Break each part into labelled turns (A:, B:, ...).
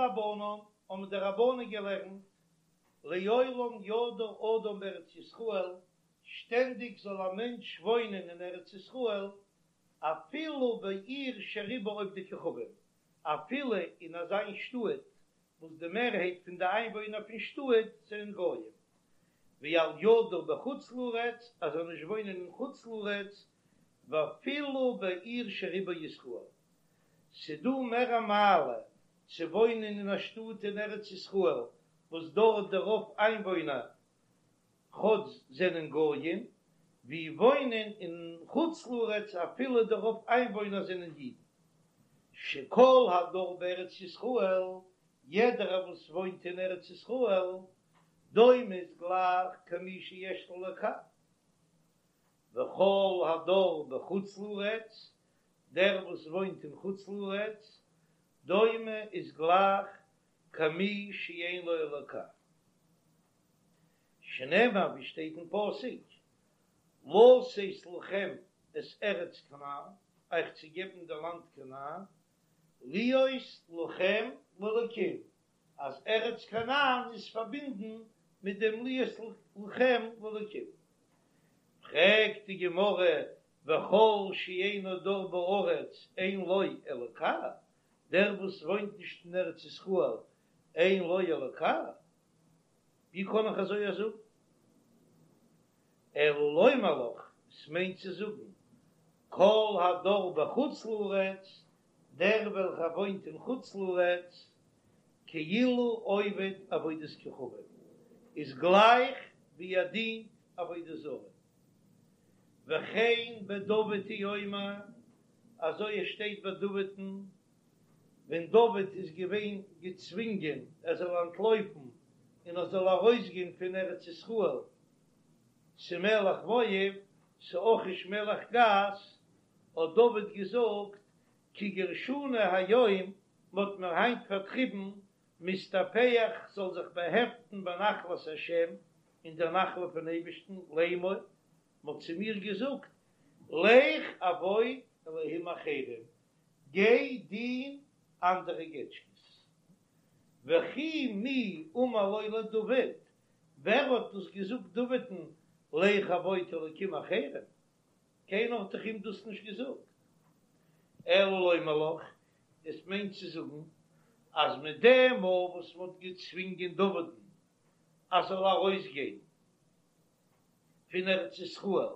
A: רבנן, האבן די רבנן געלערנט, לעולם ידור אדם בארץ ישראל, שטענדיג זאל א מענטש וואוינען אין ארץ ישראל, אפילו בעיר שרובה עובדי כוכבים, אפילו אין אזא שטאט וואס די מערהייט פון די איינוואוינער פון שטאט זענען גויים, ואל ידור בחוץ לארץ, ער זאל נישט וואוינען אין חוץ לארץ, ואפילו בעיר שרובה ישראל. ס'דא מער א מעלה צו וואוינען אין א שטאט אין ארץ ישראל וואס דארט די רוב איינוואוינער כאטש זענען גויים, ווי וואוינען אין חוץ לארץ אפילו די רוב איינוואוינער זענען אידן. שכל הדר בארץ ישראל, יעדערער וואס וואוינט אין ארץ ישראל, דומה איז גלייך כמי שיש לו אלוקה. וכל הדר בחוץ לארץ, דער וואס וואוינט אין חוץ לארץ, דומה איז גלייך כמי שאין לו אלוקה. שנאמר ווי שטייט אין פסוק, לתת לכם את ארץ כנען, אייך צו געבן די לאנד כנען, להיות לכם לאלקים, אז ארץ כנען איז פארבינדן מיט דעם להיות לכם לאלקים. פרעגט די גמרא, וכל שאינו דר בארץ אין לו אלוקה, דער וואס וואוינט נישט אין ארץ ישראל אין לו אלוקה, ווי קען איך אזוי א זאגן? אלא לומר לך, עס מיינט צו זאגן, כל הדר בחוץ לארץ, דער וועלכער וואוינט אין חוץ לארץ, כאילו עובד עבודת כוכבים, איז גלייך ווי ער דינט עבודה זרה. וכן בדוד הוא אומר, אזוי עס שטייט ביי דוד'ן, ווען דוד איז געווען געצווינגען ער זאל אנטלויפן און ער זאל ארויסגיין פון ארץ ישראל צו מלך מואב, צו אכיש מלך גת, האט דוד געזאגט, כי גרשוני היום, מ'האט מיר היינט פארטריבן, מהסתפח כ'זאל זיך באהעפטן בנחלת השם, אין דער נחלה פון אייבערשטן, לאמור, מ'האט צו מיר געזאגט, לך עבוד אלהים אחרים, גיי דין אנדערע געטשקעס. וכי מי אמר לו לדוד, ווער האט דאס געזאגט דוד'ן, לך עבוד אלקים אחרים? קיינער האט דאך אים דאס נישט געזאגט. אלא לומר לך, עס מיינט צו זאגן אז מיט דעם מאל וואס מען האט געצווינגען דוד'ן אז זאל ארויסגיין פון ארץ ישראל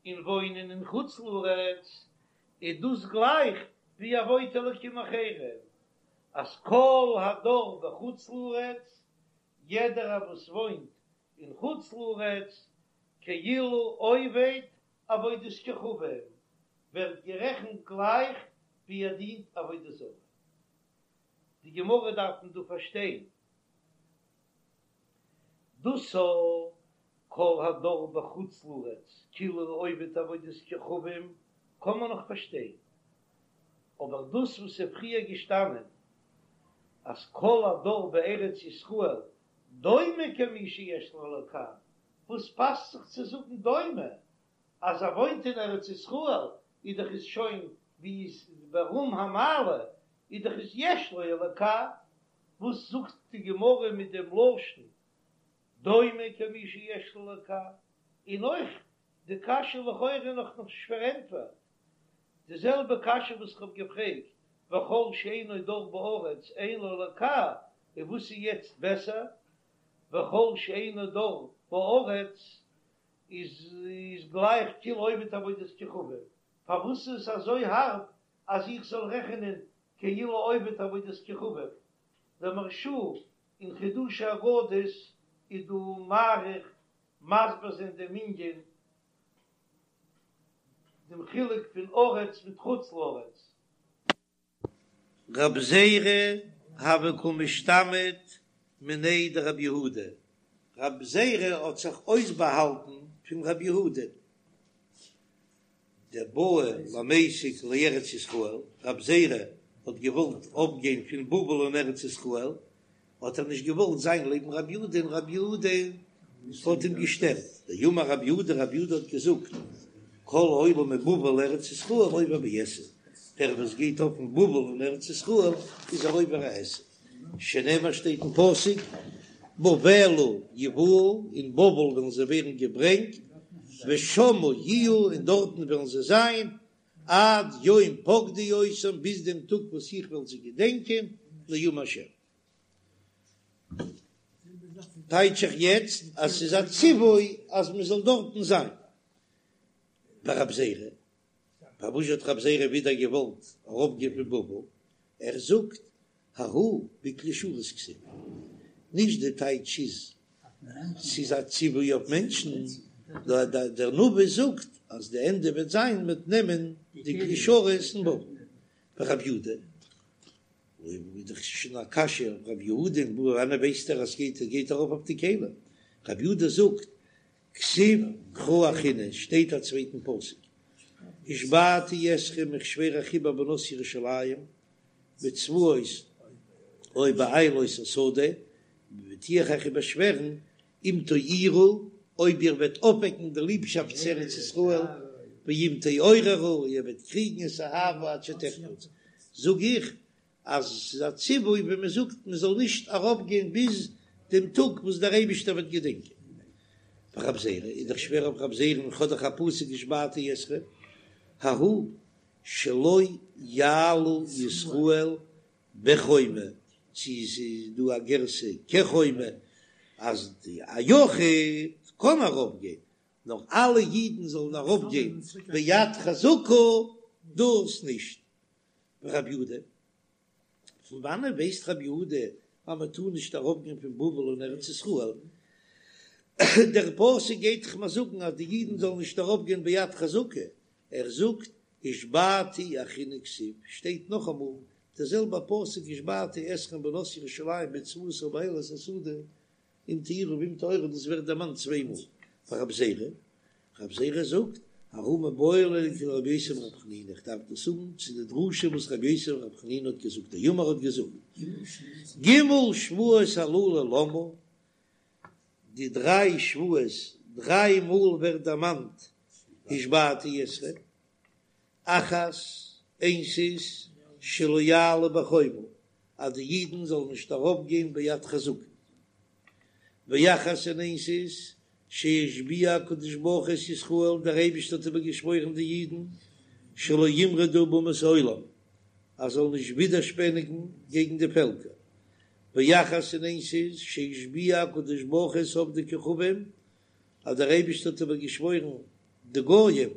A: און וואוינען אין חוץ לארץ, איז דאס גלייך ווי עבוד אלקים אחרים, אז כל הדר בחוץ לארץ, יעדערער וואס וואוינט אין חוץ לארץ, כאילו עובד עבודת כוכבים, ווערט גערעכנט גלייך ווי ער דינט עבודה זרה. די גמרא דארף מען דא פארשטיין. דאס א כל הדר בחוץ לארץ כאילו עובד עבודת כוכבים קען מען נאך פארשטיין, אבער דאס וואס איז פריער געשטאנען אז כל הדר בארץ ישראל דומה כמי שיש לו אלוקה, וואס פאסט זיך צו זאגן דומה? אז ער וואוינט אין ארץ ישראל איז דאך איז שוין ווי איז ברום המעלה איז דאך איז יש לו אלוקה, וואס זאגט די גמרא מיט דעם לשון דומה כמי שיש לו אלוקה? און אויך די קשיא לכאורה נאך נישט פארענטפערט, די זעלבע קשיא וואס איך האב געפרעגט וכל שאינו דר בארץ אין לו אלוקה, און וואס איז יעצט בעסער וכל שאינו דר בארץ איז איז גלייך כאילו עובד עבודת כוכבים, פארוואס איז עס אזוי הארב אז איך זאל רעכענען כאילו עובד עבודת כוכבים? דער מהרש"א אין חידושי אגדות איז דא מאריך מסביר זיין דעם ענין דעם חילוק פון ארץ מיט חוץ לארץ.
B: רב זירא הוה קא משתמיט מיניה דרב יהודה, רב זירא האט זיך אויסבאהאלטן פון רב יהודה, דבעא למיסק לארץ ישראל, רב זירא האט געוואלט אפגיין פון בבל אין ארץ ישראל, האט ער נישט געוואלט זיין לעבן רב יהודה און רב יהודה האט אים געשטערט, דאמר רב יהודה, רב יהודה האט געזאגט, כל העולה מבבל לארץ ישראל עובר בעשה, דער וואס גייט אויף פון בבל אין ארץ ישראל איז ער עובר א עשה. שנאמר שטייט אין פסוק, בבלה יובאו, אין בבל וועלן זיי ווערן געברענגט, ושמה יהיו, און דארטן וועלן זיי זיין, עד יום פקדי אותם, ביז דעם טאג וואס איך וועל זיי געדענקען, נאום השם. טייטש איך יעצט אז ס'איז א ציווי אז מ'זאל דארטן זיין. ורב זירא, פארוואס האט רב זירא ווידער געוואלט ארויפגיין פון בבל? ער זאגט ההוא בכלי שרת כתיב, נישט די טייטש איז ס'איז א ציווי אויף מענטשן, נאר דער נביא זאגט אז די ענדע וועט זיין מ'וועט נעמען די כלי שרת אין בבל. ורב יהודה, אויב איז דאך שוין א קשיא אויף רב יהודה, פון וואנען ווייסט ער אז ס'גייט גייט ארויף אויף די כלים? רב יהודה זאגט כתיב קרא אחרינא, שטייט א צווייטן פסוק, השבעתי אתכם איך שווער אייך איבער בנות ירושלים בצבאות או באילות השדה, טו איך אייך איבערשווערן אם תעירו, אויב איר וועט אויפוועקן די ליבשאפט צו ארץ ישראל, ואם תעוררו, איר וועט קריגן את האהבה עד שתחפץ, זאג איך אז ס'איז א ציווי ווען מען זאגט מען זאל נישט ארויפגיין ביז דעם טאג וואס דער אייבישטער וועט געדענקען. ורב זירא איז דאך שווער אויף רב זירא און כ'האב דאך א פסוק השבעתי אתכם ההוא שלא יעלו ישראל בחומה, צו ס'איז דא א גירסא כחומה אז די א יחיד קען ארויפגיין נאר אלע אידן זאלן ארויפגיין ביד חזקה דאס נישט. ורב יהודה, פון וואנען ווייסט רב יהודה אז מען טאר נישט ארויפגיין פון בבל אין ארץ ישראל? דער פסוק גייט דאך מיר זאגן אז די אידן זאלן נישט ארויפגיין ביד חזקה, ער זאגט השבעתי אחרינא כתיב, שטייט נאכאמאל דער זעלבער פסוק השבעתי אתכם בנות ירושלים בצבאות או באילות השדה, אם תעירו ואם תעוררו דאס ווערט דערמאנט צוויי מאל ורב זירא, רב זירא זאגט ההוא מיבעי ליה לכדרבי יוסי ברבי חנינא איך דארף דאס האבן צו די דרשה וואס רבי יוסי ברבי חנינא האט געזאגט דאמר האט געזאגט ג' שבועות הללו למה די דריי שבועות דריי מאל ווערט דערמאנט השבעתי אתכם אחת, איינס איז, שלא יעלו בחומה, אז די אידן זאלן נישט ארויפגיין ביד חזקה. ואחת און איינס איז, שהשביע הקדוש ברוך הוא את ישראל, דער אייבערשטער האט איבערגעשוואוירן די אידן, שלא ימרדו באומות העולם, אז זאלן נישט ווידערשפעניגן קעגן די פעלקער. ואחת און איינס איז, שהשביע הקדוש ברוך הוא את עובדי כוכבים, אז דער אייבערשטער האט איבערגעשוואוירן די גויים,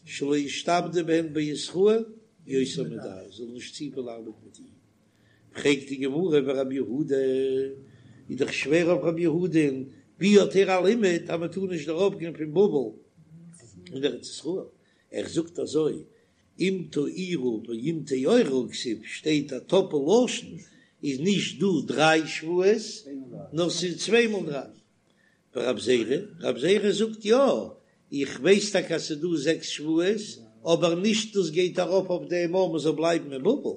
B: שלא ישתעבדו בהן בישראל יותר מדאי, זאל נישט צופיל ארבעטן מיט אידן. פרעגט די גמרא ורב יהודה, איז דאך שווער אויף רב יהודה'ן, ווי האט ער א לימוד אז מען טאר נישט ארויפגיין פון בבל אין ארץ ישראל? ער זאגט אזוי, אם תעירו ואם תעוררו כתיב, שטייט א טאפל לשון, איז נישט דא דריי שבועות, נאר ס'איז צוויי מאל דריי. ורב זירא, רב זירא זאגט יא, איך ווייס טאקע אז ס'איז דא זעקס שבועות, אבער נישט דאס גייט ארויף אויף דעם אז מ'זאל בלייבן אין בבל,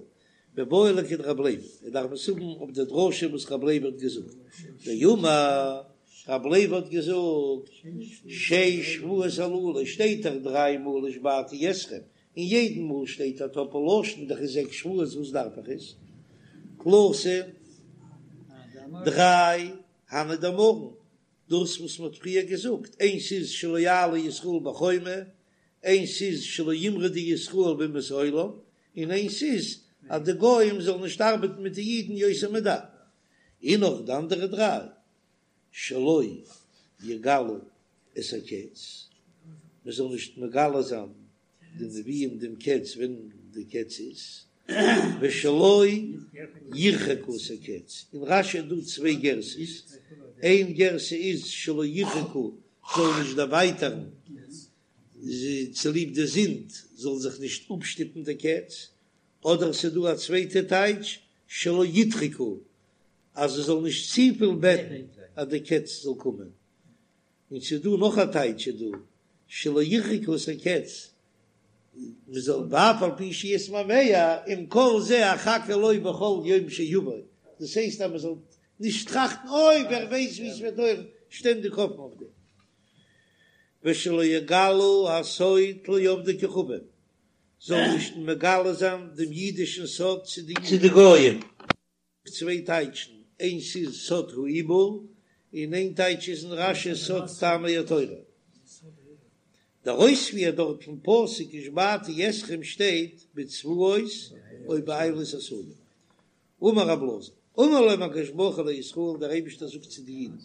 B: מיבעי ליה לכדרב לוי, ער דארף עס האבן אויף די דרשה וואס רב לוי האט געזאגט, דאמר רב לוי האט געזאגט, שש שבועות הללו שטייט דאך דריי מאל השבעתי אתכם, און יעדן מאל שטייט א טאפל לשון דאך איז זעקס שבועות וואס דארף איך עס? תלתא דריי הני דאמרן, דאס וואס מ'האט פריער געזאגט, איינס איז שלא יעלו ישראל בחומה, איינס איז שלא ימרדו ישראל באומות העולם, און איינס איז אז די גוים זאלן נישט ארבעטן מיט די אידן יותר מדאי. און נאך די אנדערע דריי, שלא יגלו את הקץ, מ'זאל נישט מגלה זיין די נביאים דעם קץ ווען די קץ איז, ושלא ירחקו את הקץ, אין רש"י איז דא צוויי גרסאות, איין גרסה איז שלא ירחקו זאל נישט דערווייטערן צוליב די זינד זאל זיך נישט אפשטופן די קץ, אדער ס'איז דא א צווייטע טייטש שלא ידחקו אז זיי זאלן נישט צופיל בעטן אז די קץ זאל קומען. און ס'איז דא נאך א טייטש איז דא, שלא ירחקו את הקץ, מ'זאל ואף על פי שיתמהמה עם כל זה אחכה לו בכל יום שיבוא, דאס הייסט אז מ'זאל נישט טראכטן אוי ווער ווייסט ווי ס'וועט דויערן, שטענדיג האפן אויף דעם. ושלא יגלו הסוד לעובדי כוכבים, זאל נישט מגלה זיין דעם אידישן סוד צו די גויים. צוויי טייטשן, איינס איז סוד העיבור, און איין טייטש איז אין רש"י סוד טעמי התורה. דער אויספיר דארט פון פסוק השבעתי אתכם שטייט בצבאות או באילות השדה. אמר רב אלעזר, אמר להם הקדוש ברוך הוא לישראל, דער אייבערשטער זאגט צו די אידן,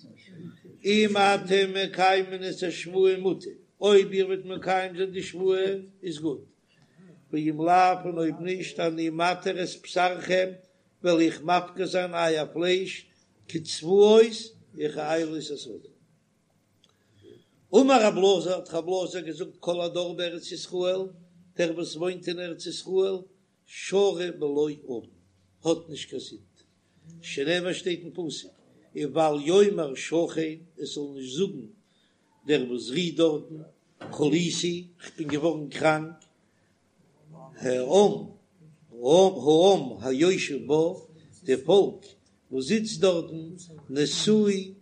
B: אם אתם מקיימין את השבועה מוטב, אויב איר וועט מקיים זיין די שבועה איז גוט, ואם לאו, און אויב נישט, אני מתיר את בשרכם, וועל איך מפקיר זיין אייער פלייש כצבאות וכאילות השדה. אמר רב אלעזר, האט רב אלעזר געזאגט, כל הדר בארץ ישראל, דער וואס וואוינט אין ארץ ישראל, שרוי בלא עון, האט נישט קיין זינד, שנאמר שטייט אין פסוק, ובל יאמר שכן, עס זאל נישט זאגן דער וואס רוהט דארטן, חליתי, כ'בין געווארן קראנק, העם, העם היושב בה, די פאלק וואס זיצט דארטן, נשוי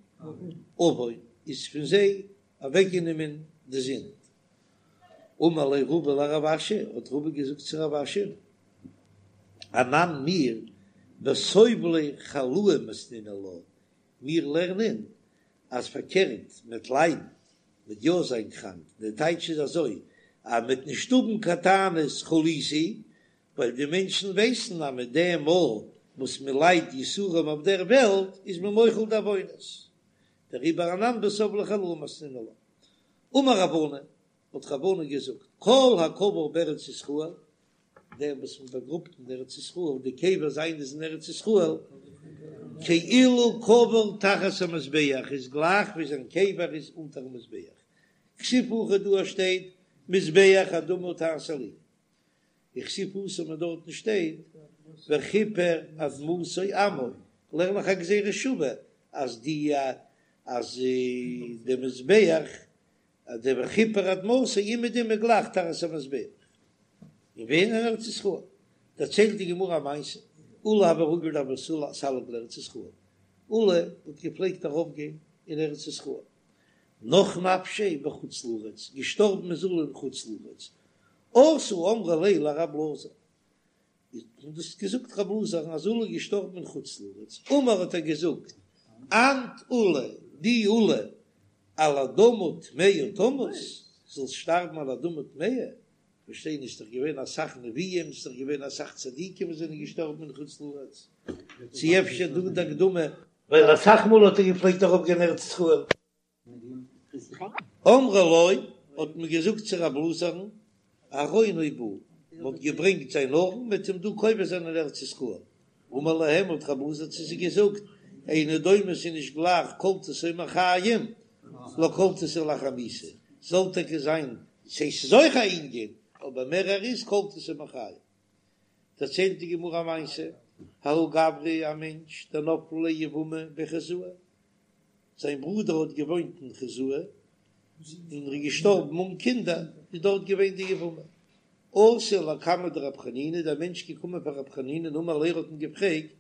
B: עון, איז פון זיי אוועקגענומען די זינד. אמר ליה רבא לרב אשי, האט רבא געזאגט צו רב אשי, אנן מיר בסובלי חלאי מתנינן לה, מיר לערנען אז פארקערט מ'עט ליידן, מ'עט יא זיין קראנק, די טייטש איז אזוי אז מ'עט נישט האבן קיין טענות חליתי, ווייל די מענטשן ווייסן אז מיט דעם מאל וואס מען ליידט יסורים אויף דער וועלט איז מען מוחל די עוונות, דעריבער אנן בסובלי חלאי מתנינן לה. אמר רב ענן, האט רב ענן געזאגט, כל הקבור בארץ ישראל, דער וואס מען באגראבט אין ארץ ישראל, די קבר זיינע איז אין ארץ ישראל, כאילו קבור תחת המזבח, איז גלייך ווי זיין קבר איז אונטערן מזבח, כתיב הכא דא שטייט מזבח אדמה תעשה לי, וכתיב התם און דארטן שטייט וכפר אדמתו עמו, לערן איך א גזירה שווה אז די אז די מזבח אז די וכפר אדמתו אומעדום איז גלייך תחת המזבח און ווען אין ארץ ישראל דערציילט די גמרא א מעשה עולא הוה רגיל דהוה סליק לארץ ישראל עולא האט געפלעגט ארויף גיין אין ארץ ישראל נח נפשיה בחוץ לארץ געשטארבן איז עולא אין חוץ לארץ אתו אמרו ליה לרב אלעזר, האט מען דאס געזאגט רב אלעזר'ן אז עולא איז געשטארבן אין חוץ לארץ, אמר האט ער געזאגט, אנת עולא, דו עולא, על אדמה טמאה תמות, זאלסט שטארבן על אדמה טמאה, כ'פארשטיי נישט, ס'דאך געווען אסאך נביאים, ס'דאך געווען אסאך צדיקים וואס זענען געשטארבן אין חוץ לארץ, צו אפשר דא די הקדמה, ווייל אסאך מאל האט ער געפלעגט ארויפגיין ארץ ישראל. אמרו לו, האט מען געזאגט צו רב אלעזר'ן, ארונו בא, מען האט געברענגט זיין ארון מ'עט אים דא קובר זיין אין ארץ ישראל. אמר להם, האט רב אלעזר צו זיי געזאגט, אינו דומה ס'איז נישט גלייך קלטתו מחיים לקלטתו לאחר מיתה, זאל טאקע זיין ס'איז אויך א ענין, אבער מערער איז קלטתו מחיים. דערציילט די גמרא א מעשה, ההוא גברא א מענטש דנפלה ליה יבמה בי חוזאי, זיין ברודער האט געוואוינט אין חוזאי און ער איז געשטארבן אן קינדער, איז דארט געווען די יבמה. אתא לקמיה דרב חנינא, דער מענטש געקומען פאר רב חנינא און אמר ליה האט אים געפרעגט,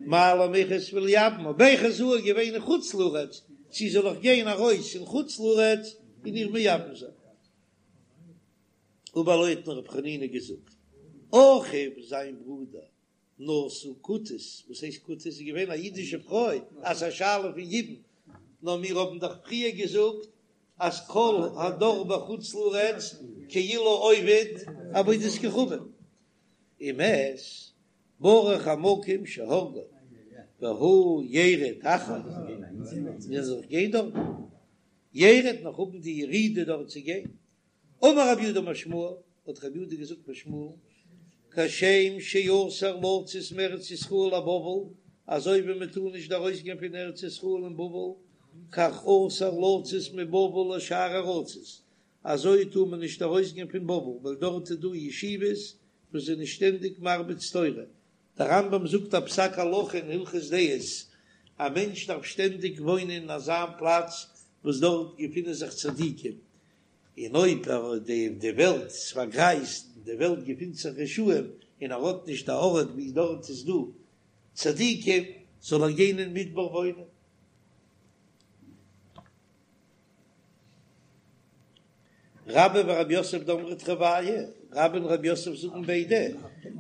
B: מהו למיחת וליבמה, בי חוזאי איז געווען אין חוץ לארץ, צו זאל איך גיין ארויס אין חוץ לארץ און איר מייבם זיין? אמר ליה האט אים רב חנינא געזאגט, אחיו זיין ברודער נשא כותית, וואס הייסט כותית? איז געווען א אידישע פרוי, אז ס'איז א שאלה פון יבום, נאר מיר האבן דאך פריער געזאגט אז כל הדר בחוץ לארץ כאילו עובד עבודת כוכבים, ומת ברוך המקום שהרגו והוא ירד אחריו, מיר זאל גיין דארט, ירד נאך האבן די ירידה דארט צו גיין. אמר רב יהודה אמר שמואל, האט רב יהודה געזאגט פון שמואל, כשם שאסור לצאת מארץ ישראל לבבל, אזוי ווי מען טאר נישט ארויסגיין פון ארץ ישראל אין בבל, כך אסור לצאת מבבל לשאר ארצות, אזוי טאר מען נישט ארויסגיין פון בבל, ווייל דארט איז דא ישיבות וואס זענען שטענדיג מרביץ תורה. דער רמב"ם זאגט א פסק הלכה אין הלכות דעות, א מענטש דארף שטענדיג וואוינען אין אזא פלאץ וואס דארט געפינען זיך צדיקים, און אויב די די וועלט איז פארגרייזט און די וועלט געפינט זיך רשעים און ער האט נישט א ארט ווי דארט איז דא צדיקים זאל ער גיין אין מדבר וואוינען. רבה ורב יוסף דאמרי תרוייהו, רבה און רב יוסף זאגן ביידע.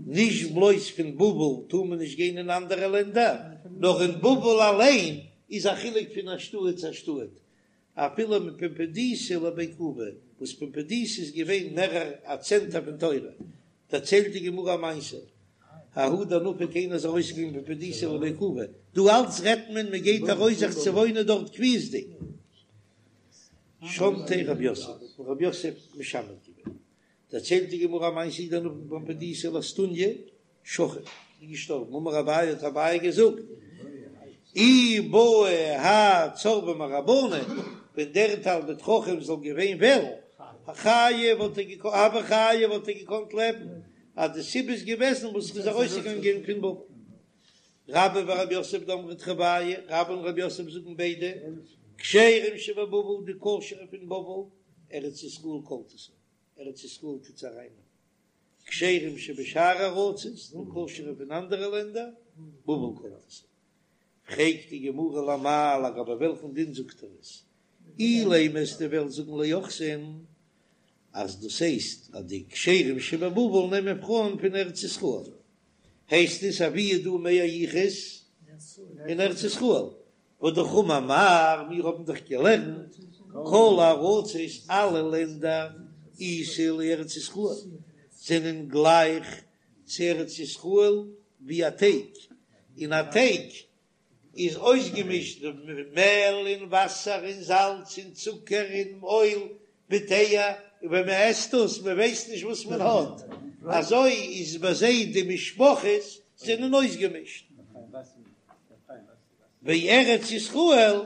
B: נישט בלויז פון בבל טאר מען נישט גיין אין אנדערע לענדער, נאר אין בבל אליין איז א חילוק פון א שטאט צו א שטאט, אפילו מפומבדיתא לבי כובי, וואס פומבדיתא איז געווען מערער א צענטער פון תורה, דערציילט די גמרא א מעשה, ההוא דנפק איינער איז ארויסגעגאנגען מפומבדיתא לבי כובי, דא אלץ רעדט מען מען גייט ארויס זיך צו וואוינען דארט קביעות'דיג, שמתיה רב יוסף, האט אים רב יוסף משמת געווען, דערציילט די גמרא א מעשה ההוא דנפק מפומבדיתא לאסטוניא, שכיב איז געשטארבן, אמר אביי האט אביי געזאגט, אי בעי האי צורבא מרבנן, ווען דער תלמיד חכם זאל געווען וועלן, חיי וואלט ער געקאנט, הוה חיי וואלט ער געקאנט לעבן, אז די סיבה איז געוועזן וואס ער איז ארויסגעגאנגען פון בבל. רבה ורב יוסף דאמרי תרוייהו, רבה און רב יוסף זאגן ביידע, כשרים שבבבל, די כשר'ע פון בבל, ארץ ישראל קולטתן, ארץ ישראל טוט זיי ארייננעמען. כשרים שבשאר ארצות, די כשר'ע פון אנדערע לענדער, בבל קולטת. פרעגט די גמרא למאי לגבי וועלכן דין זאגט ער עס? אילימא וועסטו וועלן זאגן ליוחסין אז דאס הייסט אז די כשרים שבבבל נעמען פרויען פון ארץ ישראל, הייסט עס אז וואו איז דא מער יחוס אין ארץ ישראל, והאמר מר, מיר האבן דאך געלערנט כל הארצות אלע לענדער איתא לארץ ישראל זענען גלייך צו ארץ ישראל ווי א טייג, און א טייג איז אויסגעמישט מעל און וואסער און זאלץ און צוקער און אויל מיט אייער, און ווען מען עסט דאס מען ווייסט נישט וואס מען האט, אזוי איז ביי זיי די משפחות זענען אויסגעמישט. וארץ ישראל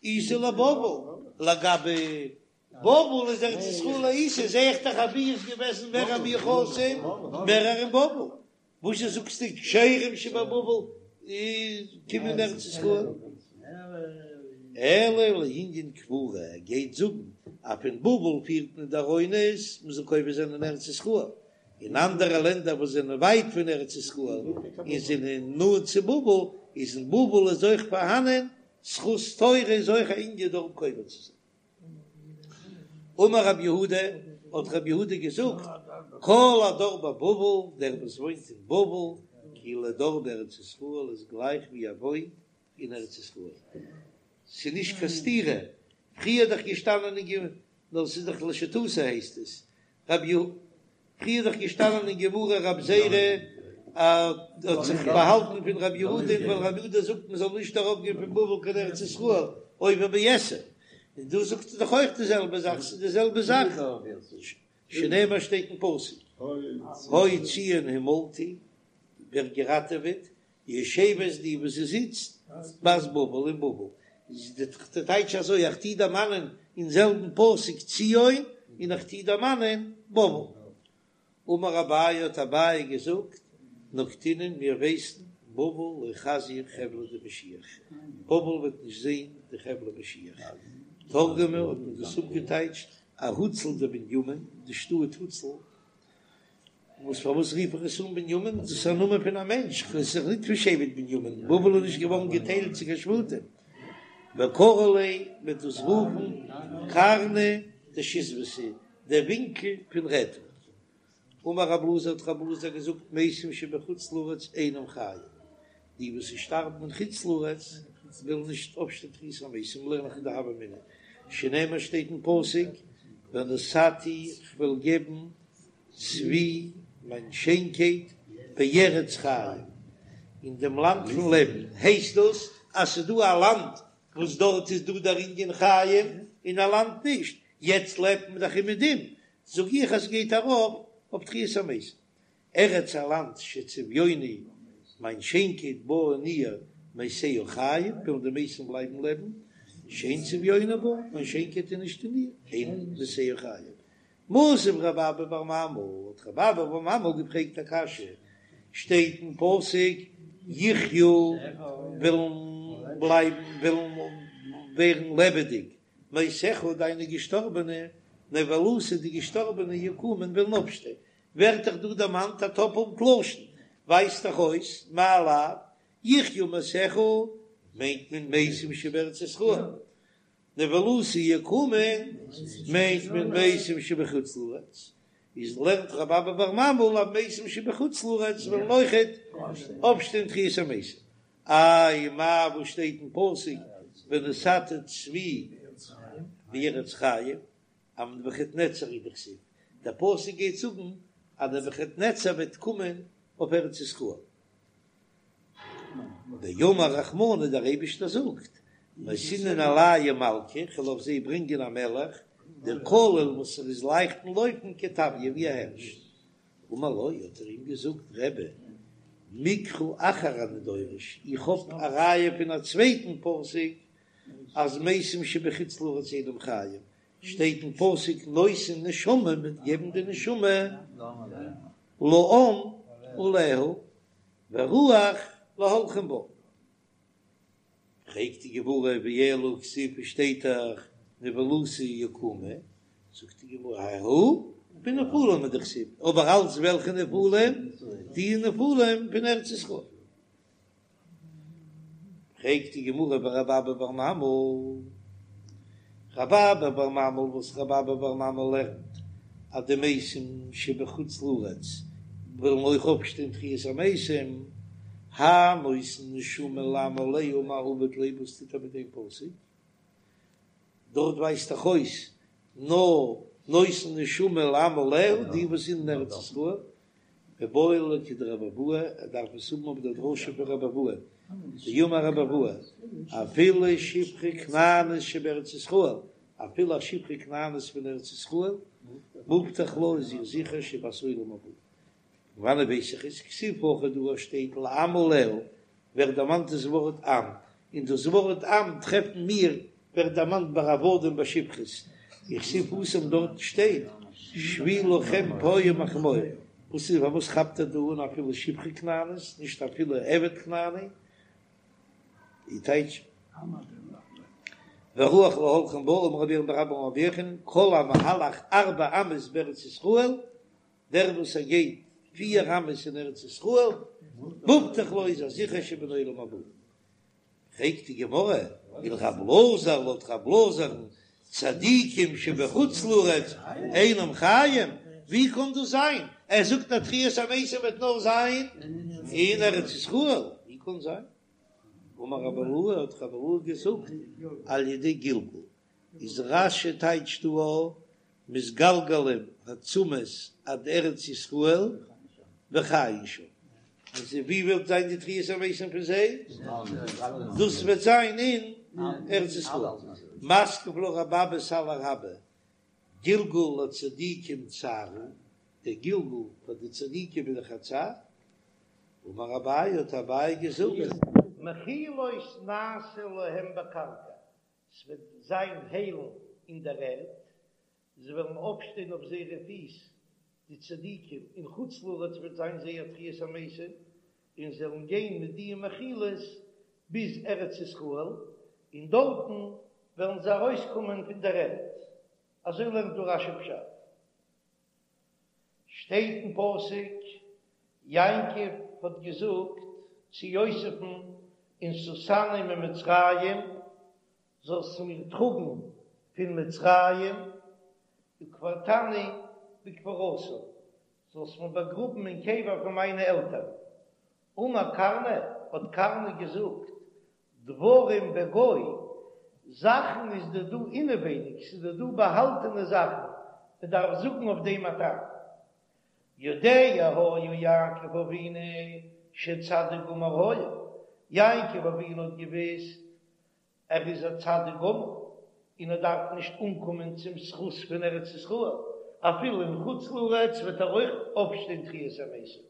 B: איתא לבבל, לגבי בבל איז ארץ ישראל איתא, זעה איך דאך אז וואו איז געוועזן מער מיוחסים מערער אין בבל, וואזשע זאגסטו כשרים שבבבל קומען ארץ ישראל? אלא לענין קבורה, ער גייט זאגן אז פון בבל פירט מען די ארונות מען זאל קובר זיין אין ארץ ישראל, אין אנדערע לענדער וואס זענען ווייט פון ארץ ישראל און זענען נאנט צו בבל, איז אין בבל איז אויך פארהאנען זכות תורה איז אויך א ענין דארט קובר צו זיין. אמר רב יהודה, האט רב יהודה געזאגט, כל הדר בבבל, דער וואס וואוינט אין בבל, כאילו דר בארץ ישראל איז גלייך ווי ער וואוינט אין ארץ ישראל. ס'איז נישט קיין סתירה, פריער איז דאך געשטאנען אין גמ', נאר ס'איז דאך לשיטתו הייסט עס, רב י. פריער איז דאך געשטאנען אין גמרא רב זירא האט זיך באהאלטן פון רב יהודה ווייל רב יהודה זאגט מען זאל נישט ארויף גיין פון בבל קיין ארץ ישראל עובר בעשה, און דא זאגט ער דאך אויך די זעלבע זאך, ס'איז די זעלבע זאך, שנאמר שטייט אין פסוק הוי ציון המלטי ווערט געראטעוועט יושבת די וואס זי זיצט בת בבל אין בבל, איז די טייטש אזוי איך טוה דערמאנען אין זעלבן פסוק ציון און איך טוה דערמאנען בבל. אמר אביי האט אביי געזאגט נקטינן מיר ווייסן בבל לא חזיא חבלא דמשיח, בבל וועט נישט זען די חבלי משיח, תרגמה האט מען דאס אפגעטייטשט אהוצל דבנימין, די שטאט הוצל וואס פארוואס רוף איך עס אן בנימין? דאס איז א נאמען פון א מענטש, עס איז ניט פון שבט בנימין, בבל איז נישט געווארן געטיילט צו קיין שבטים. וקרו ליה מ'וועט דאס רופן קרנא דשיזבתא, דער ווינקל פון רעטונג. אמר רב אלעזר האט רב אלעזר געזאגט מתים שבחוץ לארץ אינם חיים, די וואס שטארבן אין חוץ לארץ וועלן נישט אויפשטיין תחיית המתים, לערן איך אין די הוה אמינא, שנאמר שטייט אין פסוק ונתתי כ'וועל געבן צבי מיין שיינקייט בארץ חיים, אין דעם לאנד פון לעבן, הייסט דאס אז ס'איז דא א לאנד וואס דארט איז דא דער ענין חיים און א לאנד נישט, יעצט לעבט מען דאך אומעדום, זאג איך אז ס'גייט ארויף אויף תחיית המתים. ארץ א לאנד שצביוני מיין שיינקייט בה אין איר מתיה חיים וועלן די מתים בלייבן לעבן, שאין צביוני בה מיין שיינקייט איז נישט אין איר, אין מתיה חיים. מתיב רב אבא בר ממל, האט רב אבא בר ממל געפרעגט א קשיא, שטייט אין פסוק יחיו וועלן בלייבן וועלן ווערן לעבעדיג, מתיך דיינע געשטארבענע, נבלתי די געשטארבענע יקומון וועלן אויפשטיין, ווערט דאך דא דערמאנט א טאפלט לשון, ווייזט דאך אויס מאי לאו יחיו מתיך מיינט מען מתים שבארץ ישראל, נבלתי יקומון מיינט מען מתים שבחוץ לארץ. איז לערנט רב אבא בר ממל אז מתים שבחוץ לארץ וועלן אויכעט אויפשטיין תחיית המתים. איי מאי וואס שטייט אין פסוק ונתתי צבי בארץ חיים אז נבוכדנצר הוא דכתיב, דער פסוק גייט זאגן אז נבוכדנצר וועט קומען אויף ארץ ישראל. דאמר רחמנא דער אייבישטער זאגט, נתינן עלייהו מלכא, כ'וועל אויף זיי ברענגען א מלך, דקליל וואס ער איז לייכט אין לויפן כטביא ווי א הערש. אמר לו, האט ער אים געזאגט, רבי, מקרא אחר אני דורש, איך האב א ראיה פון א צווייטן פסוק אז מתים שבחוץ לארץ אינם חיים, שטייט אין פסוק נותן נשמה מ'וועט געבן די נשמה לעם עליה ורוח להולכים בה. פרעגט די גמרא ואלא כתיב שטייט דאך נבלתי יקומו, זאגט די גמרא ההוא בנפלים הוא דכתיב, אבער אלץ וועלכע נפלים? די נפלים פון ארץ ישראל. פרעגט די גמרא ורב אבא בר ממל, רב אבא בר ממל וואס רב אבא בר ממל לערנט אז די מתים שבחוץ לארץ וועלן אויך אויפשטיין תחיית המתים, האי נותן נשמה לעם עליה מאי עביד ליה וואס טוט ער מיט דעם פסוק? דארט ווייזט דאך אויס נאר נותן נשמה לעם עליה די וואס זענען אין ארץ ישראל, מיבעי ליה לכדרב אבהו, ער דארף עס האבן אויף דער דרשה פון רב אבהו, דאמר רב אבהו, אפילו שפחה כנענית שבארץ ישראל, אפילו א שפחה כנענית פון ארץ ישראל, מובטח לה איז איר זיכער שהיא בת עולם הבא. פון וואנעט ווייס איך עס? כתיב הכא דא שטייט לעם עליה, ווערט דערמאנט דאס ווארט עם, און דאס ווארט עם טרעפן מיר ווערט דערמאנט ביי עבדים ביי שפחות, וכתיב התם דארט שטייט שבו לכם פה עם החמור, וואס איז פארוואס כאפט ער דא אן אפילו שפחה כנענית נישט אפילו עבד כנעני, די טייטש ורוח להולכים בה אמר רבי ירמיה בר אבא אמר רבי יוחנן כל המהלך ארבע אמות בארץ ישראל דער וואס ער גייט פיר אמות אין ארץ ישראל, מובטח לו איז ער זיכער שבן עולם הבא. פרעגט די גמרא, ולרב אלעזר לויט רב אלעזר'ן צדיקים שבחוץ לארץ אינם חיים, ווי קען דאס זיין? ער זאגט אז תחיית המתים וועט נאר זיין אין ארץ ישראל, ווי קען זיין? אמר רב אילעא האט רב אילעא געזאגט על ידי גלגול, איז רש"י טייטשט דא מתגלגלים העצמות עד ארץ ישראל וחיין שם, אז ווי וועט זיין די תחיית המתים פון זיי? דאס וועט זיין אין ארץ ישראל. מתקיף לה רב אבא סלא רבה, גלגול לצדיקים צער הוא, דער גלגול פאר די צדיקים איז דאך א צער, אמר אביי האט אביי געזאגט, מחילות נעשה להם בקרקע, ס'וועט זיין היילן אין דער ערד, זיי וועלן אויפשטיין אויף זייערע פיס, די צדיקים, אין חוץ לארץ וועט זיין זייער תחיית המתים, און זיי וועלן גיין מיט די מחילות ביז ארץ ישראל, און דארטן וועלן זיי ארויסקומען פון דער ערד. אזוי לערנט דא רש"י פשט. שטייט אין פסוק, יעקב האט געזאגט צו יוסף'ן ונשאתני ממצרים, זאלסט מיר טראגן פון מצרים, וקברתני בקבורתם, זאלסט מיר באגראבן אין קבר פון מיינע עלטערן. אמר קרנא, האט קרנא געזאגט, דברים בגו, זאכן איז דא דא אינעווייניג, ס'איז דא דא באהאלטענע זאכן, מען דארף זאגן אויף דעם א טעם. יודע היה יעקב אבינו שצדיק גמור היה, יעקב אבינו האט געוואוסט ער איז א צדיק גמור און ער דארף נישט אנקומען צום זכות פון ארץ ישראל, אפילו אין חוץ לארץ וועט ער אויך אויפשטיין תחיית המתים.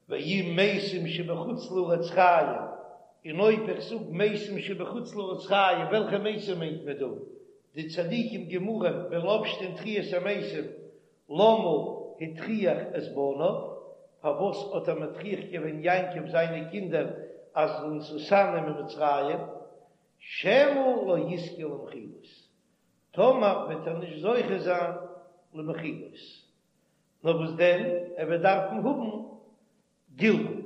B: ואם מתים שבחוץ לארץ חיים, און אויב איך זאג מתים שבחוץ לארץ חיים, וועלכע מתים מיינט מען דא? די צדיקים גמורים וועלן אויפשטיין תחיית המתים, למה הטריח את בניו, פארוואס האט ער מטריח געווען יעקב זיינע קינדער אז ונשאתני ממצרים, שמא לא יזכה למחילות, טאמער וועט ער נישט זוכה זיין למחילות. נאר וואס דען, ער וועט דארפן האבן גלגול,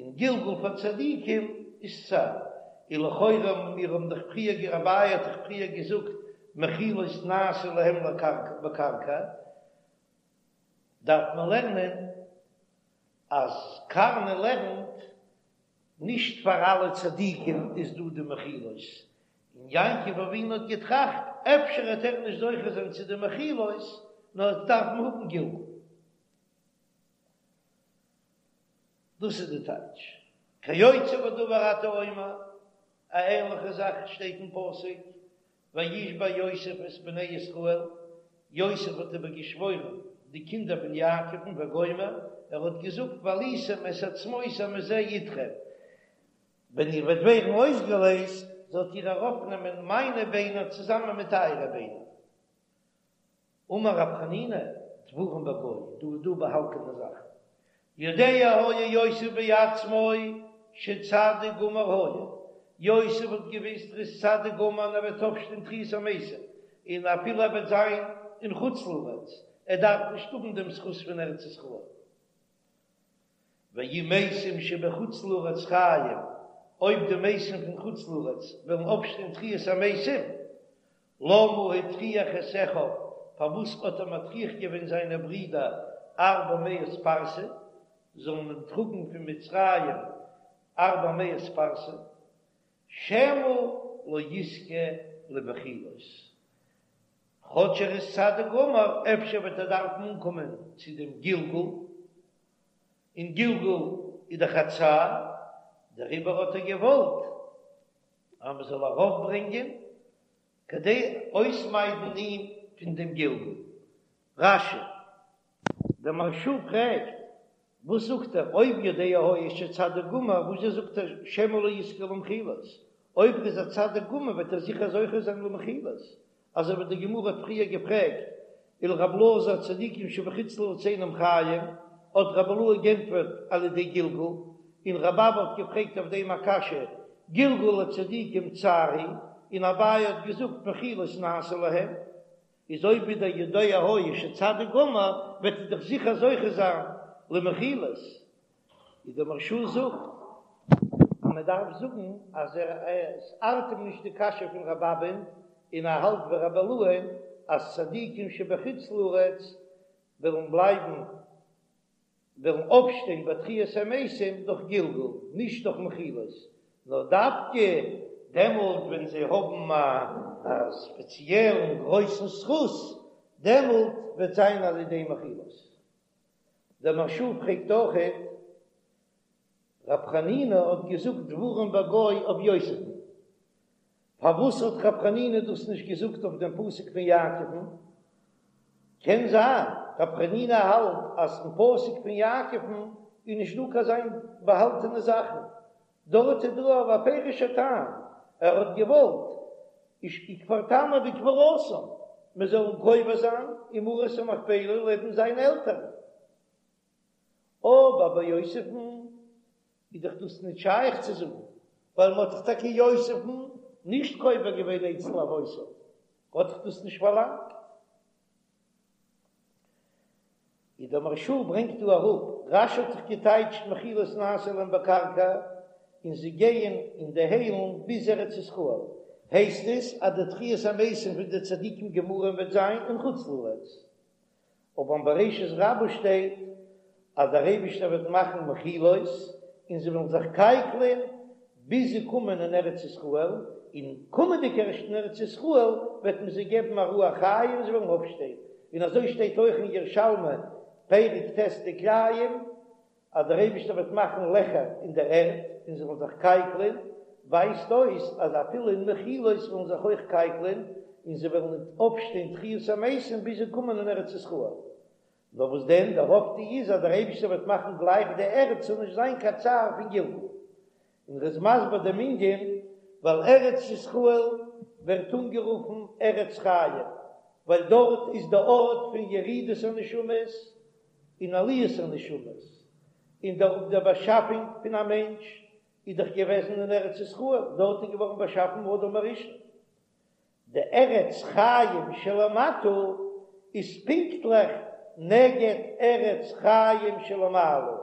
B: און גלגול פאר צדיקים איז צער, און לכאורה מיר האבן דאך פריער, אביי האט דאך פריער געזאגט.
A: מחילות נעשו להם בקרקע, דארף מען לערנען אז קרנא לערנט נישט פאר אלע צדיקים איז דא די מחילות, און יעקב אבינו האט געטראכט אפשר וועט ער נישט זוכה זיין צו די מחילות נאר ער וועט דארפן האבן גלגול. דאס איז די טייטש כיוצא בדבר אתה אומר, א ענליכע זאך שטייט אין פסוק וישבע יוסף את בני ישראל, יוסף האט איבער געשוואוירן די קינדער פון יעקב'ן וגומר, ער האט געזאגט והעליתם את עצמותי מזה אתכם, ווען איר וועט ווערן אויסגעלייזט זאלט איר ארויפנעמען מיינע ביינער צוזאמען מיט אייערע ביינער. אמר רב חנינא, דברים בגו, דא איז דא באהאלטענע זאכן. יודע היה יוסף בעצמו שצדיק גמור היה, יוסף האט געוויסט ער איז צדיק גמור און ער וועט אויפשטיין תחיית המתים, און אפילו ער וועט זיין אין חוץ לארץ, ער דארף נישט האבן דעם זכות פון ארץ ישראל. ואם מתים שבחוץ לארץ חיים, אויב די מתים פון חוץ לארץ וועלן אויפשטיין תחיית המתים, למה הטריח את אחיו, פארוואס האט ער מטריח געווען זיינע ברידער ארבע מאות פרסה, זאלן אים טראגן פון מצרים ארבע מאות פרסה, שמא לא יזכה למחילות, כאטש ער איז צדיק גמור, אפשר וועט ער דארפן אנקומען צו דעם גלגול, און גלגול איז דאך א צער, דעריבער האט ער געוואלט אז מען זאל ארויפברענגען כדי אויסמיידן אים פון דעם גלגול. רש"י. דער מהרש"א פרעגט, וואס זאגט ער אויב יודע היה שצדיק גמור, וואס זשע זאגט ער שמא לא יזכה למחילות, אויב ער איז א צדיק גמור וועט ער זיכער זוכה זיין למחילות, אזוי ווי די גמרא האט פריער געפרעגט ולרבי אלעזר צדיקים שבחוץ לארץ אינם חיים, האט רבי אילעא גענטפערט על ידי גלגול, און רבי אבא האט געפרעגט אויף דעם א קשיא, גלגול לצדיקים צער הוא, און אביי האט געזאגט מחילות נעשה להם, איז אויב ווידער יודע היה שצדיק גמור וועט ער דאך זיכער זוכה זיין למחילות. ווי דער מהרש"א זאגט אז מען דארף זאגן אז ער עס ארט אים נישט די קשיא פון רבי אבא'ן און ער האלט ווי רבי אילעא'ן אז צדיקים שבחוץ לארץ וועלן בלייבן וועלן אויפשטיין ביי תחיית המתים דורך גלגול נישט דורך מחילות נאר דווקא דעמאלט ווען זיי האבן א ספעציעלן גרויסן זכות דעמאלט וועט זיין על ידי מחילות. דער מהרש"א פרעגט אויכעט, רב חנינא האט געזאגט דברים בגו אויף יוסף'ן, פארוואס האט רב חנינא דאס נישט געזאגט אויף דעם פסוק פון יעקב'ן? קען זיין רב חנינא האלט אז אין פסוק פון יעקב'ן איז נישט דא קיין זיין באהאלטענע זאכן, דארט איז דא א בפירוש'ער טעם, ער האט געוואלט וקברתני בקבורתם, מען זאל אים קובר זיין אין מערת המכפלה לעבן זיינע עלטערן. אבער ביי יוסף'ן איז דאך דאס נישט שייך צו זאגן, ווייל מען האט דאך טאקע יוסף'ן נישט קובר געווען אצל אבותיו, האט דאך דאס נישט פארלאנגט. איז דער מהרש"א ברענגט דא אראפ, רש"י האט זיך געטייטשט מחילות נעשה להם בקרקע, און זיי גייען אין די היילן ביז ארץ ישראל, הייסט עס אז די תחיית המתים פון די צדיקים גמורים וועט זיין אין חוץ לארץ, אבער אין בראשית רבה שטייט אז דער אייבישטער וועט מאכן מחילות און זיי וועלן זיך קייקלען ביז זיי קומען אין ארץ ישראל, און קומענדיג ערשט אין ארץ ישראל וועט מען זיי געבן א רוח חיים און זיי וועלן אויפשטיין, און אזוי שטייט אויך אין ירושלמי פרק ט' דכלאים אז דער אייבישטער וועט מאכן לעכער אין דער ערד און זיי וועלן זיך קייקלען, ווייזט אויס אז אפילו אין מחילות וועלן זיך אויך קייקלען און זיי וועלן ניט אויפשטיין תחיית המתים ביז זיי קומען אין ארץ ישראל. נאר וואס דען, דער אויפטו איז אז דער אייבישטער וועט מאכן גלייך די ערד ס'זאל נישט זיין קיין צער פון גלגול. און ר'איז מסביר דעם ענין, ווייל ארץ ישראל ווערט אנגערופן ארץ חיים, ווייל דארט איז די ארט פון ירידת הנשמות און עליית הנשמות, און דער דער באשאפונג פון א מענטש איז דאך געוועזן אין ארץ ישראל, דארט איז געווארן באשאפן אדם הראשון. די ארץ חיים שלמטה איז פונקטליך נגד ארץ חיים שלמעלה,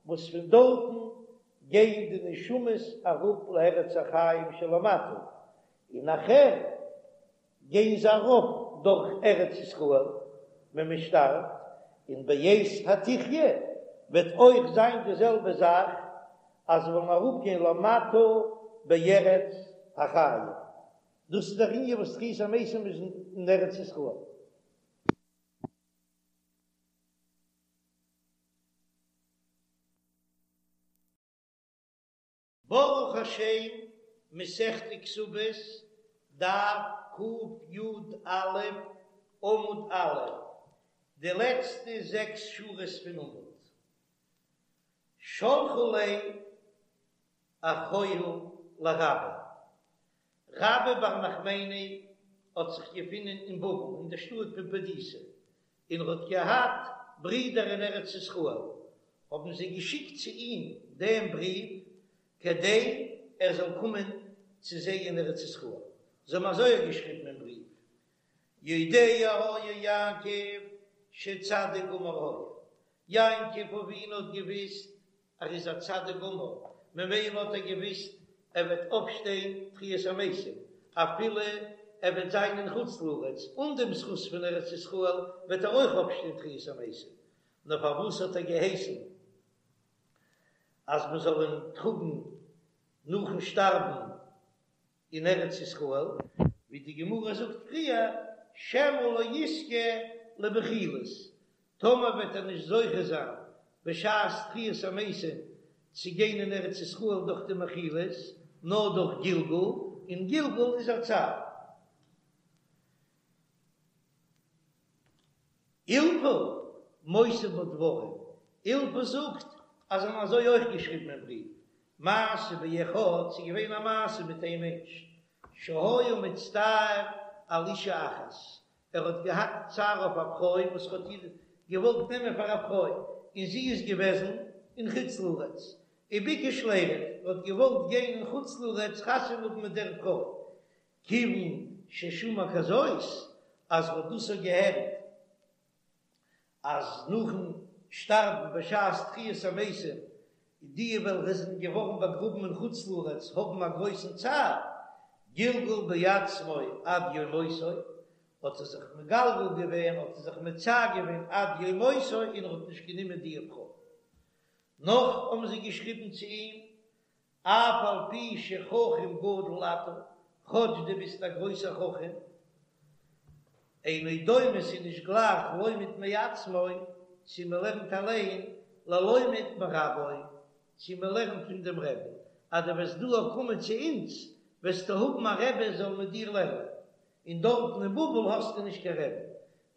A: וואס פון דארטן גייען די נשמות אראפ לארץ החיים שלמטה, און נאכהער. גייען זיי ארויף דורך ארץ ישראל ווען מען שטארבט, און בעת התחיה וועט אויך זיין די זעלבע זאך אז זיי וועלן אראפגיין למטה בארץ החיים, דאס איז דער ענין וואס תחיית המתים איז אין ארץ ישראל. ברוך השם, מסכת כתובות, דף קי"א, עמוד א', די לעצטע זעקס שורות פון עמוד. שלחו ליה אחוהי לרבה. רבה בר נחמני האט זיך געפונען אין בבל אין דער שטאט פומבדיתא, און ער האט געהאט ברידער אין ארץ ישראל, האבן זיי געשיקט צו אים דעם בריוו כדי ער זאל קומען צו זיי אין ארץ ישראל. זיי האבן אזוי געשריבן אין בריוו, יודע היה יעקב שצדיק גמור היה, יעקב אבינו האט געוויסט ער איז א צדיק גמור, ממילא האט ער געוויסט ער וועט אויפשטיין תחיית המתים, אפילו ער וועט זיין אין חוץ לארץ, אן דעם זכות פון ארץ ישראל וועט ער אויך אויפשטיין תחיית המתים, נאר פארוואס האט ער געהייסן אז מען זאל אים טראגן נאכן שטארבן אין ארץ ישראל, ווי די גמרא זאגט פריער, שמא לא יזכה למחילות, טאמער וועט ער נישט זוכה זיין בשעת תחיית המתים צו גיין אין ארץ ישראל דורך די מחילות, נאר דורך גלגול, און גלגול איז א צער. אילפא מוסיף בה דברים, אילפא זאגט אז זיי האבן אזוי אויך געשריבן אין בריוו, מעשה באחד, ס'איז געווען א מעשה מיט איין מענטש, שהיה מצטער על אישה אחת, ער האט געהאט צער אויף א פרוי וואס האט איר געוואלט נעמען פאר א פרוי, און זי איז געוועזן אין חוץ לארץ, וביקש לירד, ער האט געוואלט גיין אין חוץ לארץ חתונה האבן מיט דער פרוי, כיוון ששמע כזאת, אז ער האט דאס געהערט אז נאכן שטארבן בשעת תחיית המתים, די וועלכע זענען געווארן באגראבן אין חוץ לארץ האבן א גרויסן צער, גלגל בעצמו עד יום מותו, האט ער זיך מגלגל געווען, האט ער זיך מצער געווען עד יום מותו און ער האט נישט גענומען די פרוי. נאך האבן זיי געשריבן צו אים אף על פי שחכם גדול אתה, כאטש דו ביסט א גרויסער חכם, אינו דומה ס'איז נישט גלייך לומד מעצמו צו מ'לערנט אליין ללומד מרבו צו מ'לערנט פון דעם רבי, אז דו וועסט דא קומען צו אונז וועסטו האבן א רבי זאל מיט דיר לערנען, און דארטן אין בבל האסטו נישט קיין רבי,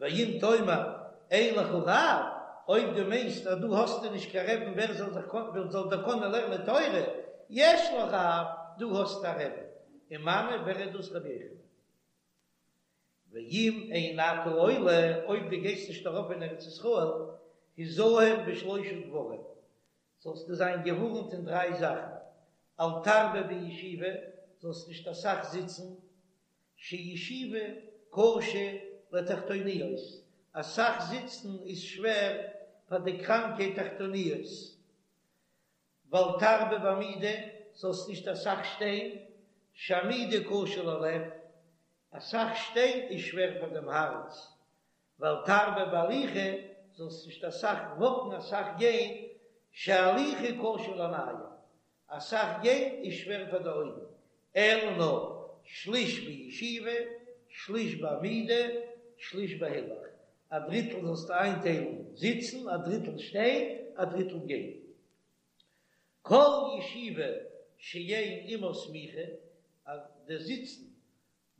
A: ואם תאמר אין לך רב, אויב דו מיינסט אז דא האסטו נישט קיין רבי'ן ווער זאל זיך ווער זאל דיר קענען לערנען תורה, יש לך רב, דו האסט א רבי, ומנו ווער איז דאס רבי יוחנן? ואם אין אתה עולה, אויב דו גייסט נישט ארויף אין ארץ ישראל, היזהר בשלושה דברים, זאלסטו זיין געווארנט אין דריי זאכן, אל תרבה בישיבה, זאלסט נישט אסאך זיצן, שישיבה קשה לתחתוניות, אסאך זיצן איז שווער פאר די קראנקע תחתוניות, ואל תרבה בעמידה, זאלסט נישט אסאך שטיין, שעמידה קשה ללב, אסאך שטיין איז שווער פאר דעם הארץ, ואל תרבה בהליכה, זאלסט נישט אסאך וואקן אסאך גיין, שהליכה קשה לעינים, אסאך גיין איז שווער פאר די אויגן, אלא נאר שליש בישיבה, שליש בעמידה, שליש בהילוך, א דריטל זאלסטו איינטיילן זיצן, א דריטל שטיין, א דריטל גיין. כל ישיבה שאין עמה סמיכה, אז די זיצן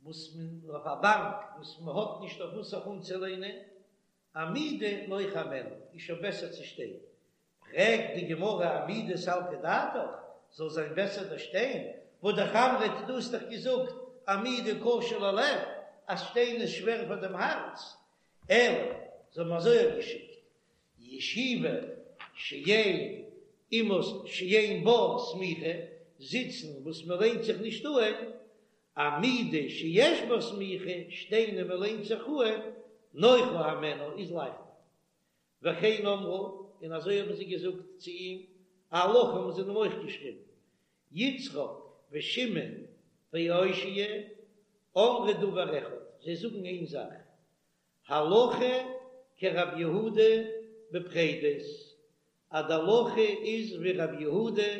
A: וואס מען אויף א באנק וואס מען האט נישט אויף וואס זיך אנצולענען, עמידה נוחה הימנה, איז שוין בעסער צו שטיין. פרעגט די גמרא עמידה סלקא דעתך, זאל זיין בעסער דאס שטיין, והא דאך אמרת דו האסט דאך געזאגט עמידה קשה ללב, אז שטיין איז שווער פאר דעם הארץ, אלא זיי האבן אזוי געשיקט, ישיבה שאין עמה שאין בה סמיכה, זיצן וואס מען לענט זיך נישט אהן, עמידה שיש בה סמיכה, שטיין און מען לענט זיך אהן, נוחה הימנה איז לייכטער. וכן אמרו, און אזוי האבן זיי געזאגט צו אים, א הלכה האבן זיי אים אויך געשריבן, יצחק ושמעון ואושיה. אמרו דבר אחד, זיי זאגן איין זאך, הלכה כרב יהודה בפרדות, אז די הלכה איז ווי רב יהודה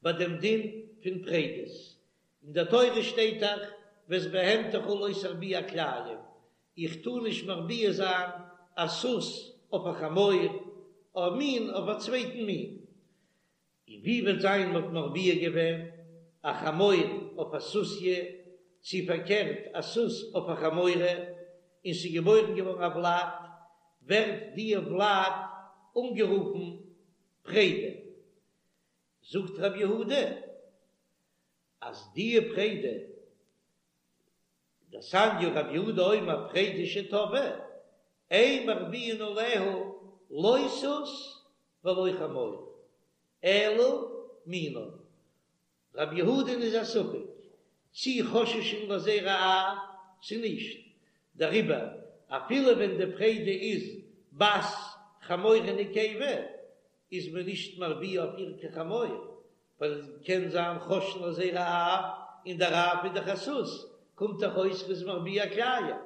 A: ביי דעם דין פון פרדות, אין דער תורה שטייט דאך ואת בהמתך לא תרביע כלאים, איך טאר נישט מרביע זיין א סוס אויף א חמור, א מין אויף א צווייטן מין, און ווי וועט זיין מ'האט מרביע געווען א חמור אויף א סוסיא, צי פארקערט א סוס אויף א חמורה, און ס'איז געבוירן געווארן א ולד, ווערט די ולד אנגערופן פרידה. זאגט רב יהודה אז די פרידה, דתניא רב יהודה אומר פרידה שטבעה, אין מרביעין עליה לא סוס ולא חמור, אלא מינה. רב יהודה'ן איז א ספק צי חוששין לזרע אב צי נישט, דעריבער אפילו ווען די פרידה איז בת חמורה נקבה איז מען נישט מרביע אויף איר קיין חמור, ווייל עס קען זיין חוששין לזרע אב, און דער אב איז דאך א סוס, קומט דאך אויס מ'איז מרביע כלאים.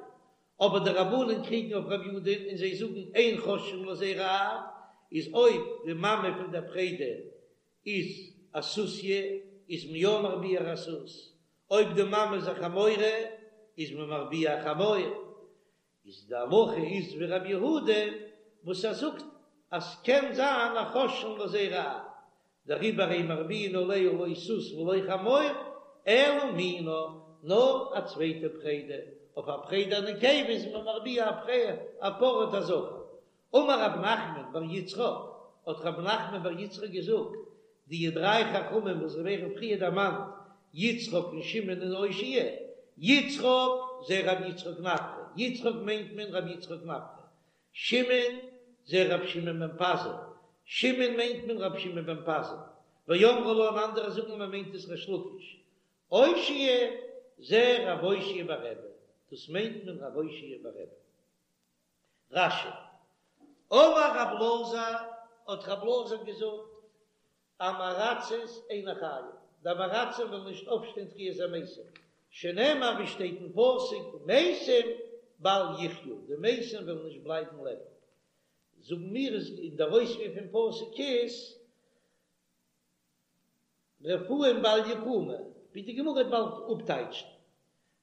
A: אבער די רבנן קריגן אויף רב יהודה'ן און זיי זאגן אין חוששין לזרע אב, איז אויב די מאמע פון דער פרידה איז א סוסיא איז מען יא מרביע א סוס, אויב די מאמע איז א חמורה איז מען מרביע א חמור, איז די הלכה איז ווי רבי יהודה וואס ער זאגט אז ס'קען זיין א חוששין לזרע אב, דעריבער אין מרביעין עליה לא סוס ולא חמור אלא מינה, נאר א צווייטע פרידה, אויף א פרידה נקבה איז מען מרביע א פר א זכר. אמר רב נחמן בר יצחק, האט רב נחמן בר יצחק געזאגט, די דריי חכמים וואס ווערן פריער דערמאנט, יצחק און שמעון און אושעיא, יצחק זה רבי יצחק נפחא, יצחק מיינט מען רבי יצחק נפחא, שמעון זה רבי שמעון בן פזי, שמעון מיינט מען רבי שמעון בן פזי, ואמרי לה און אנדערע זאגן מען מיינט עס ריש לקיש, אושעיא זה רבי אושעיא בר רבי, דאס מיינט מען רבי אושעיא בר רבי. רש"י, אמר רב אלעזר, האט רב אלעזר געזאגט, עם הארצות אינן חיים, די עם הארצים וועלן נישט אויפשטיין תחיית המתים, שנאמר ווי שטייט אין פסוק, מתים בל יחיו, די מתים וועלן נישט בלייבן לעבן. זאגן מיר איז אין דער אויספיר פון פסוק איז, רפאים בל יקומו, ווי די גמרא וועט באלד אפטייטשן.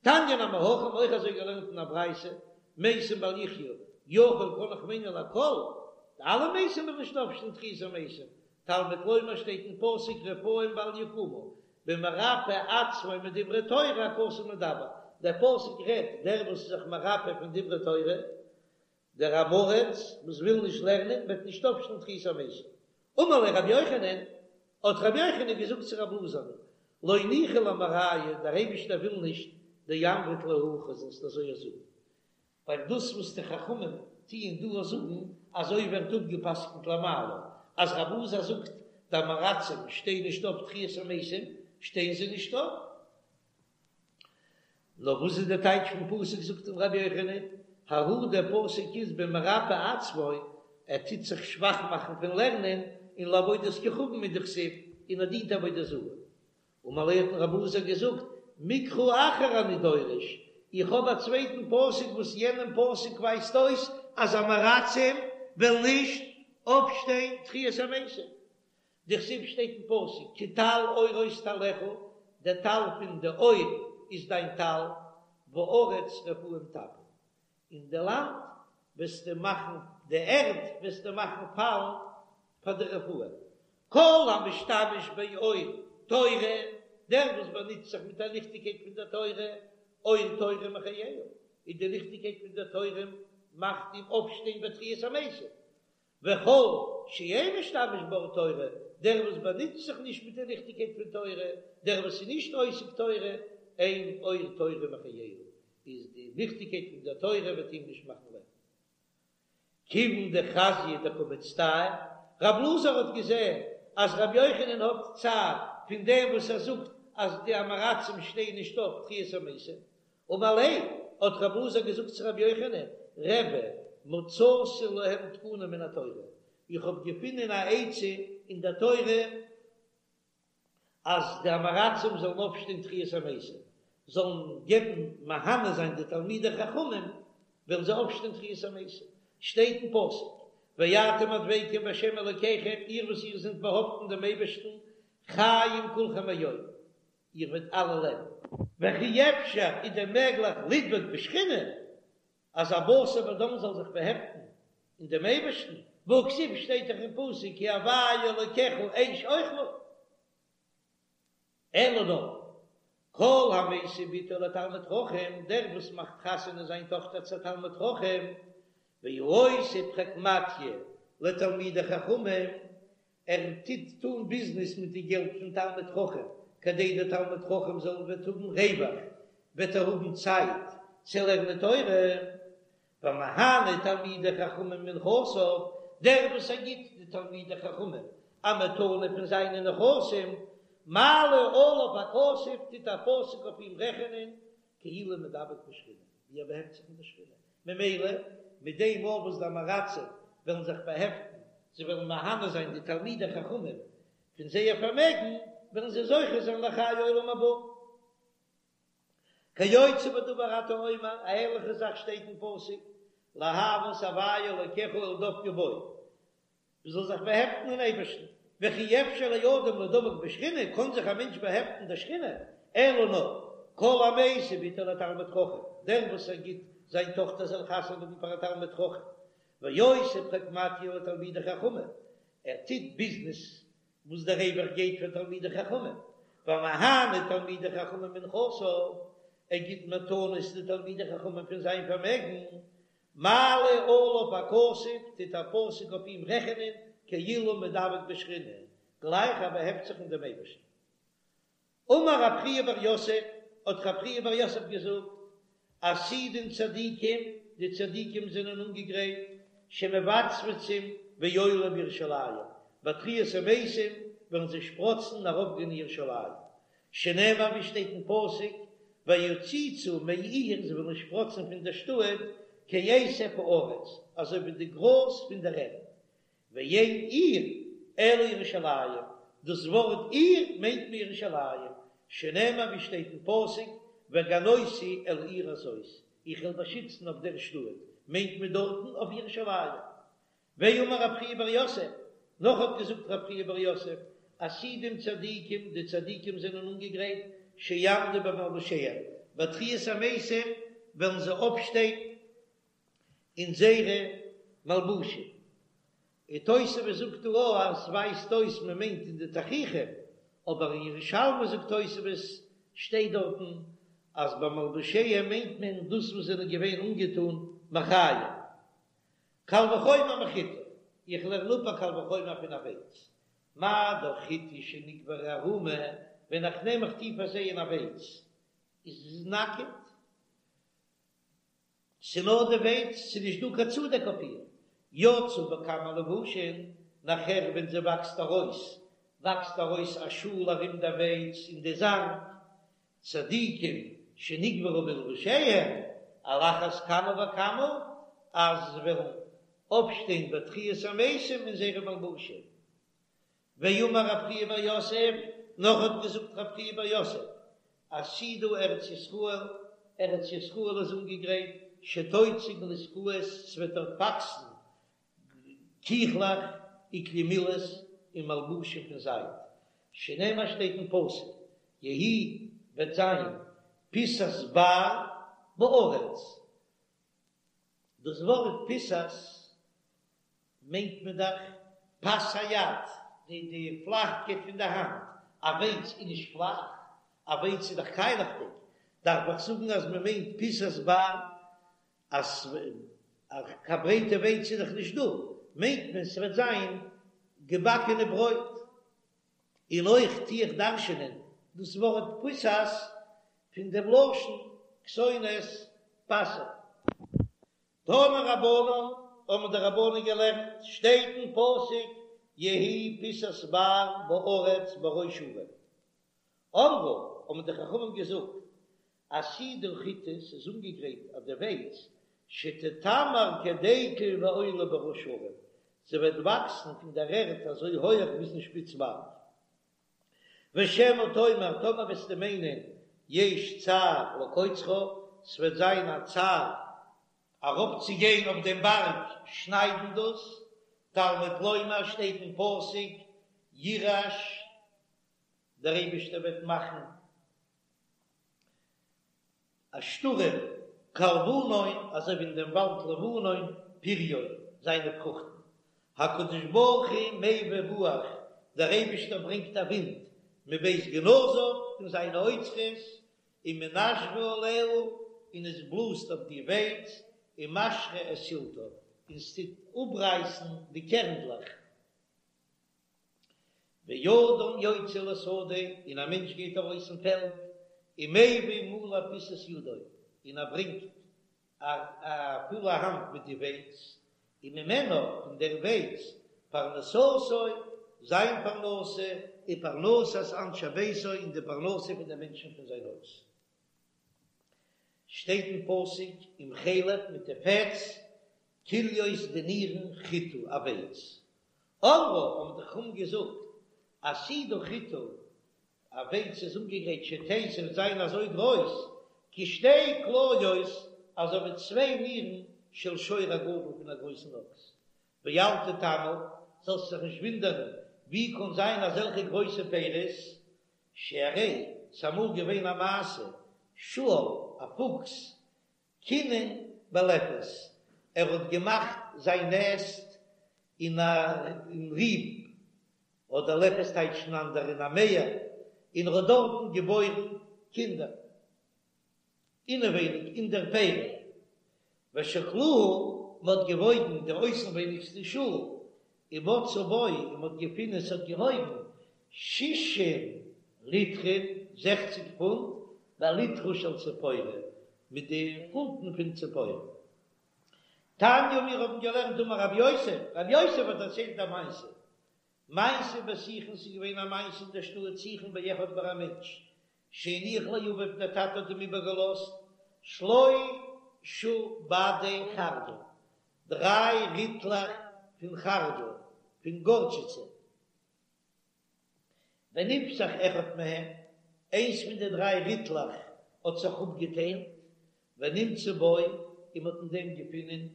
A: תניא נמי הכי, האבן אויך אזוי געלערנט אין א ברייתא, מתים בל יחיו, יכול קען איך מיינען לכל, די אלע מתים וועלן נישט אויפשטיין תחיית המתים, תלמוד לומר שטייט אין פסוק רפאים בל יקומו, במרפא עצמו מדברי תורה הכתוב מדבר, דער פסוק רעדט דער וואס איז זיך מרפא פון דברי תורה, דער עם הארץ וואס וויל נישט לערנען וועט נישט אויפשטיין תחיית המתים. אמר ליה רבי יוחנן, האט רבי יוחנן געזאגט צו רב אלעזר'ן, לא ניחא למרייהו, דער אייבישטער וויל נישט דאמרת להו הכי זאלסט אזוי זאגן, ווייל דאס וואס די חכמים טוען דא זאגן, אזוי ווערט אפגע'פסק'נט למעלה, אז רב אלעזר זאגט די עם הארצים שטייען נישט אויף תחיית המתים, שטייען זיי נישט אויף. נאר וואס איז די טייטש פון פסוק זאגט אים רבי יוחנן, ההוא דער פסוק איז במרפה עצמו, ער טוט זיך שוואך מאכן פון לערנען, און לעבודת כוכבים הוא דכתיב, און ער דינט עבודה זרה. אמר ליה האט אים רב אלעזר געזאגט, מקרא אחר אני דורש, איך האב א צווייטן פסוק וואס יענעם פסוק ווייזט אויס אז עם הארצים וועלן נישט אויפשטיין תחיית המתים, דכתיב שטייט אין פסוק כי טל אורות טלך, דער טל פון די אור איז דיין טל, וארץ רפאים תפיל, און די לאנד וועסטו מאכן, די ערד וועסטו מאכן פאלן פאר די רפאים. כל המשתמש באור תורה, דער וואס באנוצט זיך מיט א ליכטיגקייט פון דער תורה, אור תורה מחייהו, איז די ליכטיגקייט פון דער תורה מאכט אים אויפשטיין בתחיית המתים, וכל שאין משתמש באור תורה, דער וואס באנוצט זיך נישט מיט די ליכטיגקייט פון תורה, דער וואס איז נישט עוסק תורה, אין אור תורה מחייהו, איז די ליכטיגקייט פון דער תורה וועט אים נישט מאכן לעבן. כיוון דחזייה דקא מצטער, רב אלעזר האט געזען אז רבי יוחנן האט צער פון דעם וואס ער זאגט אז די עם הארצים שטייען נישט אויף תחיית המתים, אמר ליה, האט רב אלעזר געזאגט צו רבי יוחנן, רבי, מצאתי להם תקנה מן התורה, איך האב געפונען א עצה אין דער תורה אז די עם הארצים זאלן אויפשטיין תחיית המתים. זאלן געבן מהנה זיין די תלמידי חכמים, וועלן זיי אויפשטיין תחיית המתים, שטייט אין פסוק, ואתם הדבקים בהשם אלוקיכם, איר וואס איר זענט באהאפטן דעם אייבערשטן, חיים כולכם היום, איר וועט אלע לעבן. וכי אפשר איז דען מעגליך לדבוק בשכינה, אז א בשר ודם זאל זיך באהעפטן אין דעם אייבערשטן, והכתיב שטייט דאך אין פסוק כי הוי' אלוקיך אש אוכלה. אלא נאר, כל המשיא בתו לתלמיד חכם, דער וואס מאכט חתונה זיין טאכטער צו א תלמיד חכם, והעושה פרקמטיא לתלמידי חכמים, ער טוט טון ביזנעס מיט די געלט פון תלמיד חכם, כדי דער תלמיד חכם זאל וועט האבן רווח, וועט ער האבן צייט צו לערנען תורה, והמהנה תלמידי חכמים מנכסיו, דער וואס ער גיט די תלמידי חכמים א מתנה פון זיינע נכסים, מעלה עליו הכתוב, טוט א פסוק אויף אים רעכענען, כאילו מדבק בשכינה, ווי ער באהעפט זיך מיט די שכינה, ממילא מיט דעם מאל וואס די עם הארצים וועלן זיך באהעפטן, זיי וועלן מהנה זיין די תלמידי חכמים פון זייער פארמעגן, וועלן זיי זוכה זיין לחיי עולם הבא. כיוצא בדבר אתה אומר, א ענליכע זאך שטייט אין פסוק, לאהבה את הוי' אלוקיך ולדבקה בו, מען זאל זיך באהעפטן אין אייבערשטן, וכי אפשר לאדם לדבק בשכינה, קען זיך א מענטש באהעפטן אין דער שכינה, אלא נאר, כל המשיא בתו לתלמיד חכם, דער וואס ער גיט זיין טאכטער זאל חתונה האבן פאר א תלמיד חכם, ועושה פרקמטיא לתלמידי חכמים, ער טוט ביזנעס וואס דער רווח גייט פאר תלמידי חכמים, והמהנה תלמידי חכמים מנכסיו, ער גיט מתנות די תלמידי חכמים פון זיין פארמעגן, מעלה עליו הכתוב, טוט א פסוק אויף אים רעכענען כאילו מדבק בשכינה, גלייך ער באהעפט זיך אין דעם אייבערשטן. אמר רב חייא בר יוסף, האט רב חייא בר יוסף געזאגט, עתידין צדיקים, די צדיקים זענען אנגעגרייט, שמבצבצים ועולים בירושלים, ביי תחיית המתים וועלן זיי שפראצן און ארויפגיין אין ירושלים, שנאמר ווי שטייט אין פסוק, ויציצו מעיר, זיי וועלן שפראצן פון דער שטאט, כעשב הארץ, אזוי ווי די גראז פון דער ערד, ואין עיר אלא ירושלים, דאס ווארט עיר מיינט מען ירושלים, שנאמר ווי שטייט אין פסוק, והגנותי אל העיר הזאת, איך וועל באשיצן אויף דער שטאט, מיינט מען דארטן אויף ירושלים. ואמר רב חייא בר יוסף, נאך האט געזאגט רב חייא בר יוסף, עתידים צדיקים, די צדיקים זענען אנגעגרייט, שיעמדו במלבושיהם, ביי תחיית המתים וועלן זיי אויפשטיין אין זייערע מלבושים. און תוספות זאגט דא אויך אז ס'ווייזט אויס מען מיינט אין די תכריכים, אבער אין ירושלמי זאגט תוספות שטייט דארטן אז במלבושיהם מיינט מען דאס וואס זענען געווען אנגעטון מחיים. קל וחומר מחיטה, איך לערן אפ א קל וחומר פון א ווייץ, מה דאך חיטה שנקברה ערומה, ווען איך נעם איך טו פארזייען א ווייץ איז עס נאקעט, ס'נאר די ווייץ, ס'איז נישט דא קיין צודעק אויף איר, יצאו בכמה לבושין, נאכער ווען זי וואקסט ארויס, וואקסט ארויס א שאל ארום די ווייץ און די זאנג, צדיקים שנקברו בלבושיהם, על אחת כמה וכמה אז זיי וועלן אויפשטיין בתחיית המתים אין זייערע מלבושים. ואמר רב חייא בר יוסף, נאך האט געזאגט רב חייא בר יוסף, עתידה ארץ ישראל, ארץ ישראל איז אנגעגרייט, שתוציא גלוסקאות, ס'וועט דארט וואקסן קיכלעך וכלי מילת און מלבושים פון זייד, שנאמר שטייט אין פסוק, יהי וועט זיין פסת בר בארץ, דאס ווארט פסת מיינט מען דאך פס היד, די די פלאכקייט פון די האנט, א ווייץ איז נישט פלאך, א ווייץ איז דאך קיילעכדיג, דארף איך זאגן אז מען מיינט פיסת בר אז קיין ברייטע ווייץ איז דאך נישט דא, מיינט מען ס'וועט זיין געבאקענע ברויט. און אויך טו איך דרש'ענען דאס ווארט פסת פון דעם לשון כתונת פסים. תנו רבנן, האבן די רבנן געלערנט, שטייט אין פסוק יהי פסת בר בארץ בראש הרים. אמרו, האבן די חכמים געזאגט, עתידה חיטה, ס'איז אנגעגרייט אויף די ווייץ, שתתמר כדקל ועולה בראש הרים, זי וועט וואקסן פון דער ערד אזוי הויעך ביזן שפיץ בארג. ושמא תאמר, טאמער וועסטו מיינען, יש צער לקוצרה, ס'וועט זיין א צער ארויפצוגיין אויף דעם בארג שניידן דאס, תלמוד לומר שטייט אין פסוק ירעש, דער אייבערשטער וועט מאכן א שטורעם, כלבנון, אזוי ווי אין דעם וואלד לבנון, פריו, זיינע פרוכטן. הקדוש ברוך הוא מביא רוח, דער אייבערשטער ברענגט א ווינט, מבית גנזיו, פון זיינע אוצרות, ומנשבה עליה, און עס בלאזט אויף די ווייץ, ומשרה את סלתה, און עס טוט אפרייסן די קערנדלעך. ואדם יוצא לשדה, און א מענטש גייט ארויס אין פעלד, ומביא מלא פיסת ידו, און ער ברענגט א פולע האנט מיט די ווייץ, וממנה, פון דער ווייץ, פרנסתו, זיין פרנסה, ופרנסת אנשי ביתו, און די פרנסה פון די מענטשן פון זיין הויז. שטייט אין פסוק, עם חלב מיט די פעטס, כליות די נירן חיטה א ווייץ. אמרו, האבן די חכמים געזאגט, עתידה חיטה, א ווייץ איז אנגעגרייט שתהא ס'וועט זיין אזוי גרויס, כשתי כליות, אזוי ווי צוויי נירן של שור הגדול פון א גרויסן אקס. ואל תתמה, זאלסט זיך נישט ווינדערן, ווי קען זיין אזעלכע גרויסע פירות, שהרי ס'אמאל געווען א מעשה, שועל, א פוקס, קינן בלפת, ער האט געמאכט זיין נעסט אין א ריב, אדער לפת טייטשן אנדערע אין א מער, און ער האט דארטן געבוירן קינדער אינעווייניג אין דער פרי, ושקלוהו, מען האט געוואויגן די אויסנווייניגסטע שאל, ומצאו בו, און מען האט געפונען עס האט געוואויגן שישים ליטרין, זעכציג פונט, בליטרא של ציפורי, מיט די פונטן פון ציפורי. תניא מיר האבן געלערנט אמר רב יוסף, רב יוסף האט דערציילט א מעשה, מעשה בסיכון ס'איז געווען א מעשה אין דער שטאט סיכון באחד ביי א מענטש שהניח לאביו דער טאטע האט אים איבערגעלאזט שלשה בדי חרדל, דריי ריטלעך פון חרדל, פון גארטשיצע. ונפתח אחד מהם, איינס פון די דריי ריטלעך האט זיך אפגעטיילט, ונמצא בו, און מ'האט אין דעם געפונען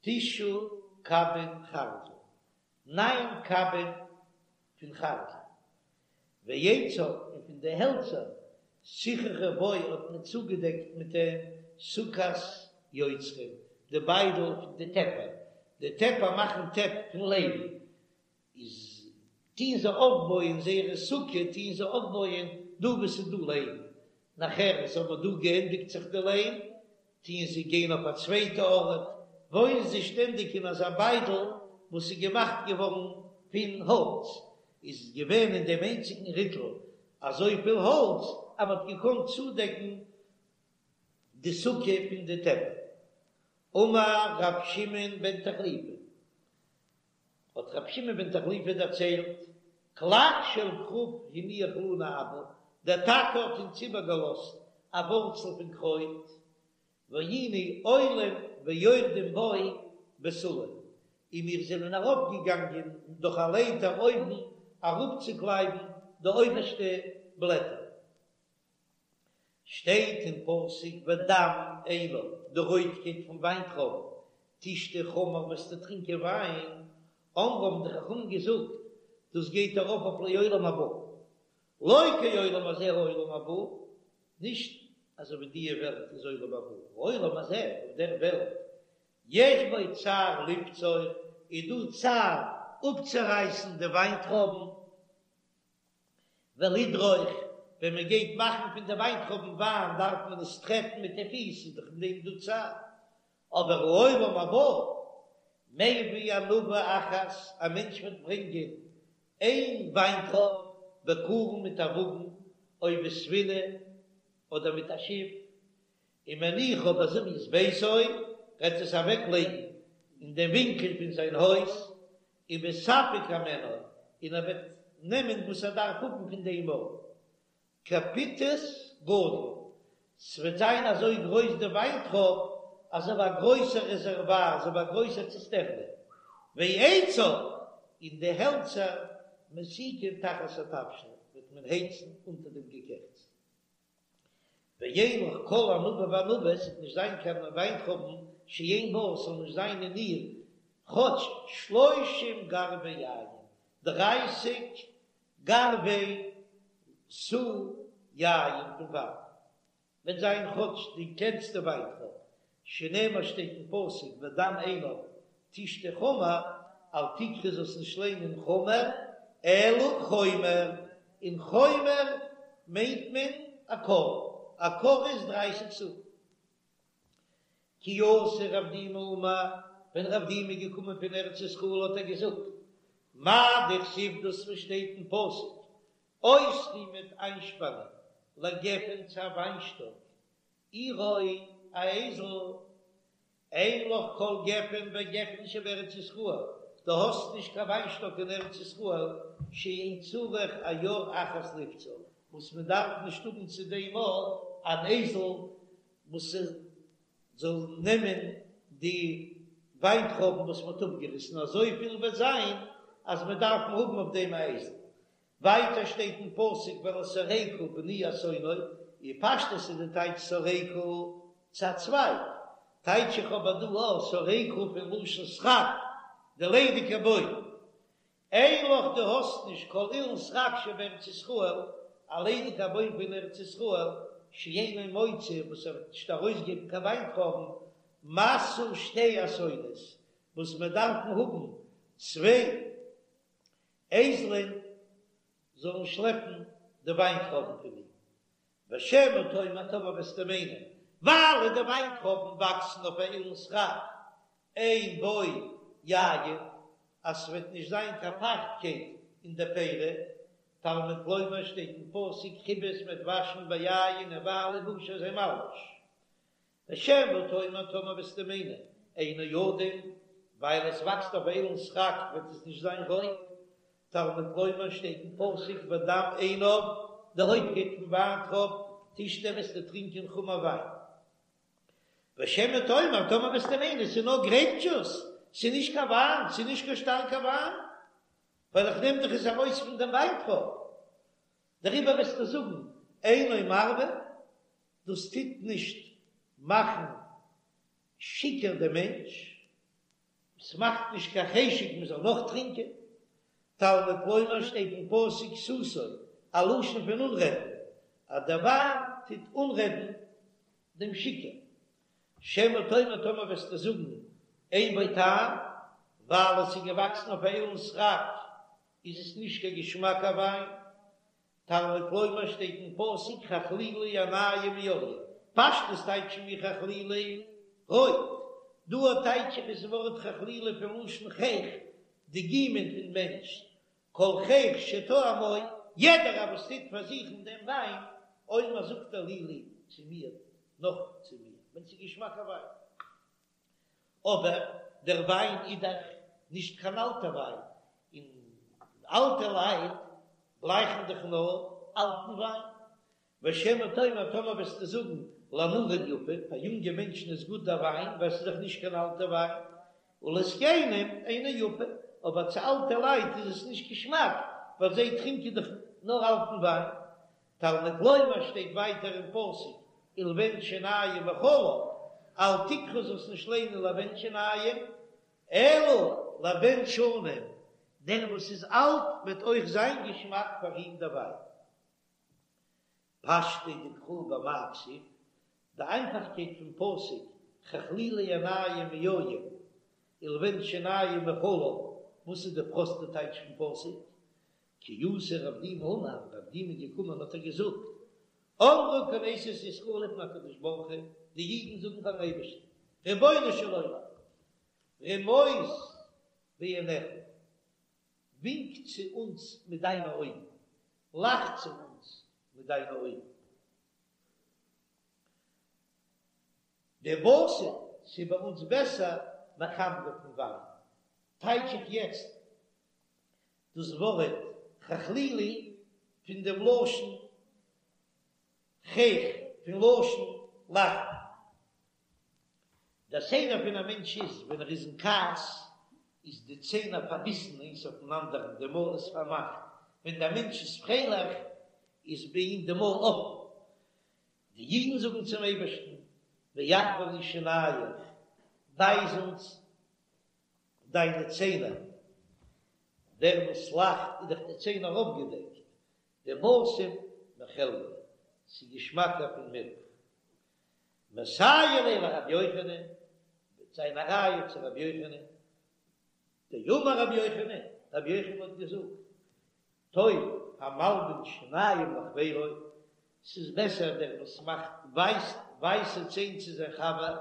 A: תשעה קבין חרדל, ניין קבין פון חרדל, ועציו, און פון די העלצער, סיככו בו האט מען צוגעדעקט מיט דעם סוכת יוצרים, די ביידל פון די טעפער, די טעפער מאכן טעפ פון ליים, איז טוהן זיי אויפבויען זייערע סוכה טוהן זיי אויפבויען דא וואו ס'איז דא ליים, נאכער איז אבער דא געענדיגט זיך די ליים, טוהן זיי גיין אויף א צווייטע ארט, וואוינען זיי שטענדיג אין אזא ביידל וואס איז געמאכט געווארן פון האלץ, איז געווען אין דעם איינציגן ריטל אזויפיל האלץ אז מ'האט געקאנט צודעקן די סוכה פון די טעפער. אמר ר' שמעון בן תחליפא, האט רבי שמעון בן תחליפא דערציילט, קלק של כרוב הניח לנו אבא, דער טאטע האט אונז איבערגעלאזט א ווארצל פון קרויט, והיינו עולים ויורדים בו בסולם, און מיר זענען ארויפגעגאנגען דורך א לייטער אויבן אראפצוקלייבן די אויבערשטע בלעטער. שטייט אין פסוק ודם עינב, די רויטקייט פון וויינטרויבן, תשתה חמר וועסטו טרינקען וויין, אמרו האבן די חכמים געזאגט, דאס גייט ארויף אויף לעולם הבא, לא כעולם הזה העולם הבא, נישט אזוי ווי דיע וועלט איז עולם הבא, העולם הזה, אויף דער וועלט, יש בו צער לבצור, איז דא צער אפצורייסן די וויינטרויבן, ולדרוך, ווען מען גייט מאכן פון די וויינטרויבן וויין דארף מען עס טרעטן מיט די פיס, איז דאך אין דעם דא צער. אבער העולם הבא, מביא ענבה אחת, א מענטש וועט ברענגען איין וויינטרויב בקרון מיט א וואגן, או בספינה, אדער מיט א שיף, ומניחה בזוית ביתו, וועט עס אוועקלייגן אין דעם ווינקל פון זיין הויז, ומספק הימנה, און ער וועט נעמען וואס ער דארף האבן פון דעם ארט. כפיטוס גדול, ס'וועט זיין אזוי גרויס די וויינטרויב, אזוי ווי א גרויסער רעזערוואר, אזוי ווי א גרויסער ציסטערנע. ועציו, און די העלצער מסיקין תחת התבשיל, וועט מען הייצן אונטער דעם געקעכטס.
B: ואין לך כל ענבה וענבה, עס וועט נישט זיין קיין וויינטרויבן שאין בה, עס זאל נישט זיין אין איר כאטש שלושים גרבי יין, דרייסיג גרבי סאה יין פון וויין. וועט זיין כאטש די קלענסטע וויינטרויב, שנאמר שטייט אין פסוק ודם ענב תשתה חמר, אל תקרי זאלסט נישט ליינען חמר אלא חומר, און חומר מיינט מען א כור, א כור איז דרייסיג סאה. כי אתא רב דימי אמר, ווען רב דימי איז געקומען פון ארץ ישראל האט ער געזאגט, מאי דכתיב דאס וואס שטייט אין פסוק, אוסרי מ'וועט איינשפאנען לגפן צו א וויינשטאק, עירו א אייזל, אין לך כל גפן וגפן שבארץ ישראל, דו האסט נישט קיין וויינשטאק אין ארץ ישראל, שאין צריך עיר אחת לפצה, וואס מען דארף נישט האבן צו דעם אן אייזל וואס זאל נעמען די וויינטרויבן וואס מען האט אפגעריסן, אזויפיל וועט זיין אז מען דארף האבן אויף דעם א אייזל. ווייטער שטייט אין פסוק ולשורקה בני אתונו, אין פשטות איז די טייטש שורקה צו א צווייג, טייטש איך אבער דא א שורקה פון לשון סרק, די ליידיגע בוים. אין לך דו האסט נישט כל אילן סרק שבארץ ישראל, א ליידיגע בוים פון ארץ ישראל, שאינו מוציא וואס ער וועט נישט ארויסגעבן קיין וויינטרויבן, משא שתי אתונות, וואס מיר דארפן האבן צוויי אייזלען זאלן שלעפן די וויינטרויבן פון אים, ושמא תאמר טאמער וועסטו מיינען, ווייל די וויינטרויבן וואקסן אויף א אילן סרק, אין בו יין, אז ס'וועט נישט זיין קיין פייכטקייט אין די פירי, תלמוד לומר שטייט אין פסוק כבס מ'וועט וואשן ביין אין וויין לבושו זיין מלבוש. ושמא תאמר טאמער וועסטו מיינען אינו אדום, ווייל עס וואקסט אויף אילן סרק וועט עס נישט זיין רויט, תלמוד לומר שטייט אין פסוק ודם ענב, די רויטקייט פון וויינטרויב, תשתה וועסטו טרינקען חמר וויין. ושמא תאמר טאמער וועסטו מיינען ס'איז נאר גרעיפ דזשוס, ס'איז נישט קיין וויין, ס'איז נישט קיין שטארקע וויין, ווייל איך נעם דאך עס ארויס פון דעם וויינטרויב, דעריבער וועסטו זאגן אינו מרווה, דאס טוט נישט מאכן שיכור דעם מענטש, עס מאכט נישט קיין חשק מען זאל נאך טרינקען. תלמוד לומר שטייט אין פסוק סתו, א לשון פון אנרעדן, אז דער וויין טוט אנרעדן דעם שיכור. שמא תאמר טאמער וועסטו זאגן אין בו טעם, ווייל עס איז געוואקסן אויף א אילן סרק איז עס נישט קיין געשמאקע וויין, תלמוד לומר שטייט אין פסוק חכלילי עינים מיין, פשטות טייטשן מיר חכלילי רויט, דא טייטש איך עס ווארט חכלילי פון לשון חיך, די גומען פון מענטש, כל חיך שטועמו, יעדער א וואס טוט פארזוכן דעם וויין, אומר זאגט ער לי לי צו מיר, נאך צו מיר, ווען ס'איז געשמאקע וויין. אבער דער וויין איז דאך נישט קיין אלטע וויין, און אלטע לייט גלייכן דאך נאר אלטן וויין. ושמא תאמר טאמער וועסטו זאגן לנערים יפה, פאר יונגע מענטשן איז גוט דער וויין ווייל ס'איז דאך נישט קיין אלטע וויין, ולזקנים אינו יפה, אבער צו אלטע לייט איז עס נישט געשמאק ווייל זיי טרינקען דאך נאר אלטן וויין. תלמוד לומר שטייט ווייטער אין פסוק ולבן שנים מחלב, אל תקרי זאלסט נישט ליינען לבן שנים, אלא לבן שנים, דער וואס איז אלט וועט אויך זיין געשמאק פאר אים דער וויין. פשטיה דקרא במאי כתיב, די איינפאכקייט פון פסוק חכלילי עינים מיין ולבן שנים מחלב, וואס איז די פראסטע טייטש פון פסוק? כי אתא רב דימי אמר, רב דימי איז געקומען האט ער געזאגט, אמרה כנסת ישראל לפני הקדוש ברוך הוא, די אידן זאגן פארן אייבערשטן, רבונו של עולם, רמוז בעיניך, ווינק צו אונז מיט דיינע אויגן, לאך צו אונז מיט דיינע אויגן. דבסים, ס'איז ביי אונז בעסער מחמרא פון וויין, טייטש איך יעצט דאס ווארט חכלילי פון דעם לשון חיך, פון לשון לאכן. דער סדר פון א מענטש איז, ווען ער איז אין כעס, איז די ציינער פארביסן איינס אויפן אנדערן, די מויל איז פארמאכט. ווען דער מענטש איז פרייליך, איז ביי אים די מויל אפן. די אידן זאגן צום אייבערשטן, ואחוי לי שינייך, ווייז אונז דיינע ציינער, דער וואס לאכט איז דאך די ציינער אויפגעדעקט, דבשם מחלבא, ס'איז געשמאקער פון מילך. מסייע ליה לרבי יוחנן, וועט זיין א ראיה צו רבי יוחנן, דאמר רבי יוחנן, רבי יוחנן האט געזאגט, טוב המלבין שיניים לחבירו, ס'איז בעסער דער וואס מאכט ווייסט ווייסע ציין צו זיין חבר,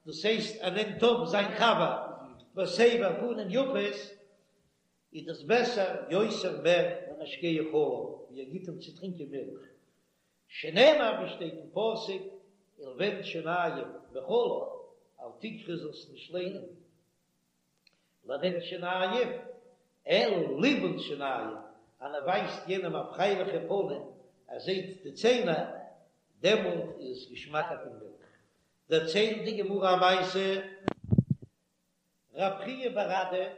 B: דאס הייסט ער נעמט אויף זיין חבר בסבר פנים יפות, איז דאס בעסער יותר מער ממשקהו חלב, ווי ער גיט אים צו טרינקען מילך, שנאמר ווי שטייט אין פסוק, ולבן שיניים מחלב, אל תקרי זאלסט נישט ליינען לבן שיניים, אלא ליבון שיניים, אז מען ווייזט יענעם א פרייליכע פנים, ער זעט די ציינער, דעמאלט איז עס געשמאקער פון מילך. דערציילט די גמרא א מעשה, רב חייא בר אדא,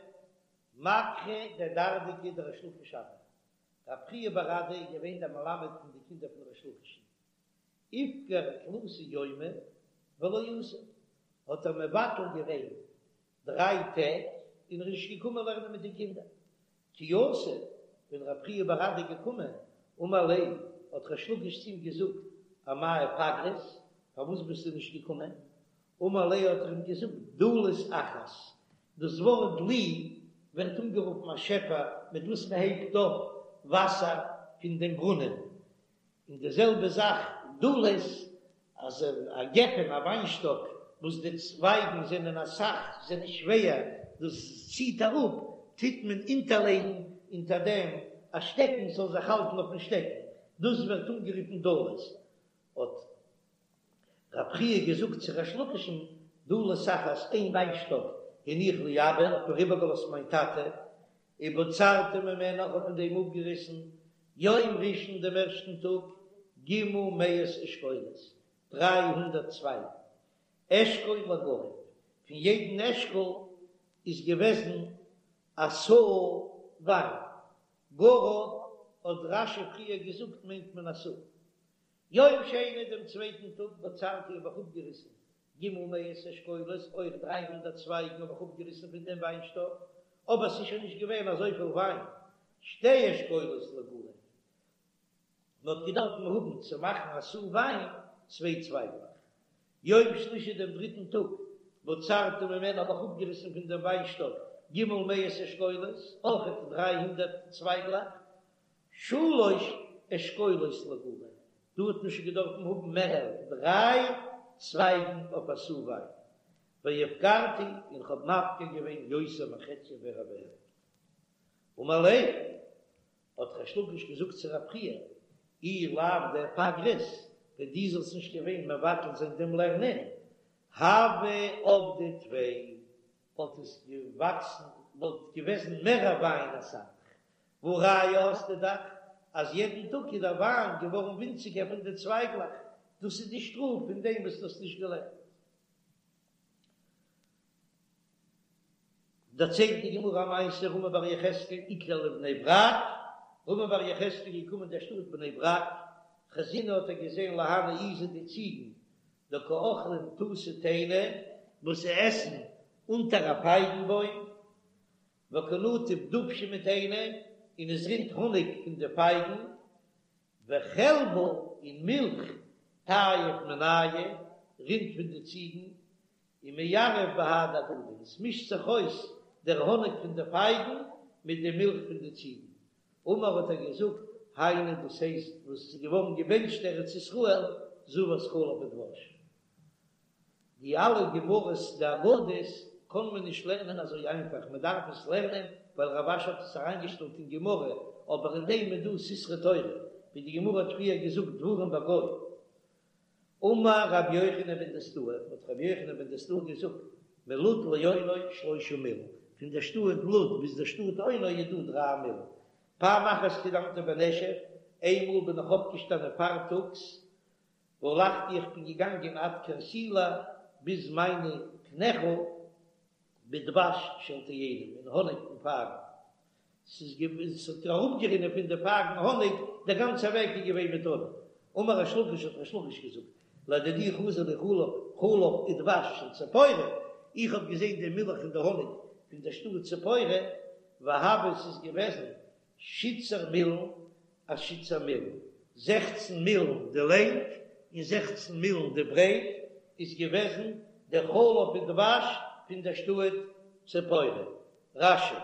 B: מדחי דרדקי דריש לקיש הוה, רב חייא בר אדא איז געווען דער מלמד פון די קינדער פון ריש לקיש'ן, איפגר תלתא יומי ולא אתא, האט ער מבטל געווען דריי טעג און ער איז נישט געקומען לערנען מיט די קינדער. כי אתא, ווען רב חייא בר אדא איז געקומען, אמר ליה, האט ריש לקיש צו אים געזאגט, אמאי איפגרת, פארוואס ביסטו נישט געקומען? אמר ליה האט ער אים געזאגט, דלית אחת, דאס ווארט דלי ווערט אנגערופן א שעפער מיט וואס מען הייבט אויף וואסער פון דעם ברונען, און די זעלבע זאך דלית, אז א גפן, א וויינשטאק, וואס די צווייגן זענען אסאך, זענען שווער, דאס ציט אראפ, טוט מען אונטערלייגן אונטער דעם א שטעקן ס'זאל זיך האלטן אויפן שטעקן, דאס ווערט אנגערופן דלית. האט רב חייא געזאגט צו ריש לקיש'ן, דלית אחת, איין וויינשטאק, הניח לי אבא, האט מיר איבערגעלאזט מיין טאטע, ובצרתי ממנה, איך האב פון דעם אפגעריסן, יום ראשון דעם ערשטן טאג, ג' מאות אשכולות, 300 צווייגן, אשכול לגרב, פון יעדן אשכול איז געוועזן א סאה וויין, גרב האט רש"י פריער געזאגט מיינט מען א סאה. יום שני דעם צווייטן טאג בצרתי האב איך אפגעריסן ג' מאות אשכולות, אויך 300 צווייגן האב איך אפגעריסן פון דעם וויינשטאק, אבער ס'איז שוין נישט געווען אזויפיל וויין, שתי אשכולות לגרב, מען האט געדארפט האבן צו מאכן א סאה וויין צוויי צווייגלעך. יום שלישי דעם דריטן טאג, בצרתי ממנה האב איך אפגעריסן פון דעם וויינשטאק ג' מאות אשכולות, אויך 300 צווייגלעך, שלש אשכולות לגרב, דא האט מען שוין געדארפן האבן מער דריי צווייגן אויף א סאה וויין, והפקרתי און כ'האב מפקיר געווען יותר מחציה מער ווי העלפט. אמר ליה, האט ריש לקיש געזאגט צו רב חייא, אי לאו דאיפגרת, ווען דו זאלסט נישט געווען מבטל זיין דעם לערנען, הוה עבדי טפי, וואלט עס געוואקסן, וואלט געוועזן מער וויין אסאך, והא ראיה האסטו דאך אז יעדן טאג איז דער וויין געווארן ווינציגער פון די צווייגלעך, דאס איז די שטראף פון דעם וואס דו האסט נישט געלערנט. דערציילט די גמרא א מעשה רמי בר יחזקאל איקלע לבני ברק, רמי בר יחזקאל איז געקומען אין דער שטאט בני ברק, חזינהו האט ער געזען להנהו עיזי די ציגן דקא אכלין תותי תאיני וואס זיי עסן אונטער א פייגן בוים, וקא נטיף דובשא מתאיני, און עס רינט האניג פון די פייגן, וחלבא און מילך טייף מינייהו רינט פון די ציגן, ומערב בהדי הדדי, און עס מישט זיך אויס דער האניג פון די פייגן מיט די מילך פון די ציגן. אמר האט ער געזאגט, היינו דאס הייסט וואס עס איז געווארן געבענטשט ארץ ישראל זבת חלב ודבש. די אלע גמרות די אגדות קען מען נישט לערנען אזוי איינפאך, מען דארף עס לערנען ווייל רב אשי האט עס אריינגעשטעלט אין גמרא, אבער אין דעם איז דא סתרי תורה, ווי די גמרא האט פריער געזאגט דברים בגו. אמר רבי יוחנן בן דוסתאי, האט רבי יוחנן בן דוסתאי געזאגט, מלוד לאונו שלושה מיל, פון דער שטאט לוד ביז דער שטאט אונו איז דא דריי מיל. פעם אחת קדמתי בנשף, איינמאל בין איך אויפגעשטאנען פארטאגס, והלכתי איך בין געגאנגען עד קרסולי ביז מיינע קנעכל בדבש של תאנים אין האניג פון פייגן, ס'איז געווען ס'האט אראפגערינען פון די פייגן האניג, דער גאנצער וועג איז געווען מיט האניג. אמר ריש לקיש האט ריש לקיש געזאגט, לדידי חזי לי חלב חלב ודבש של ציפורי, איך האב געזען די מילך און די האניג פון דער שטאט ציפורי, והוה ס'איז געוועזן שיתסר מילין אשיתסר מילין, זעכצן מילן די לענג און זעכצן מילן די ברייט, איז געוועזן דער חלב און דבש פון דער שטאט ציפורי. רש"י.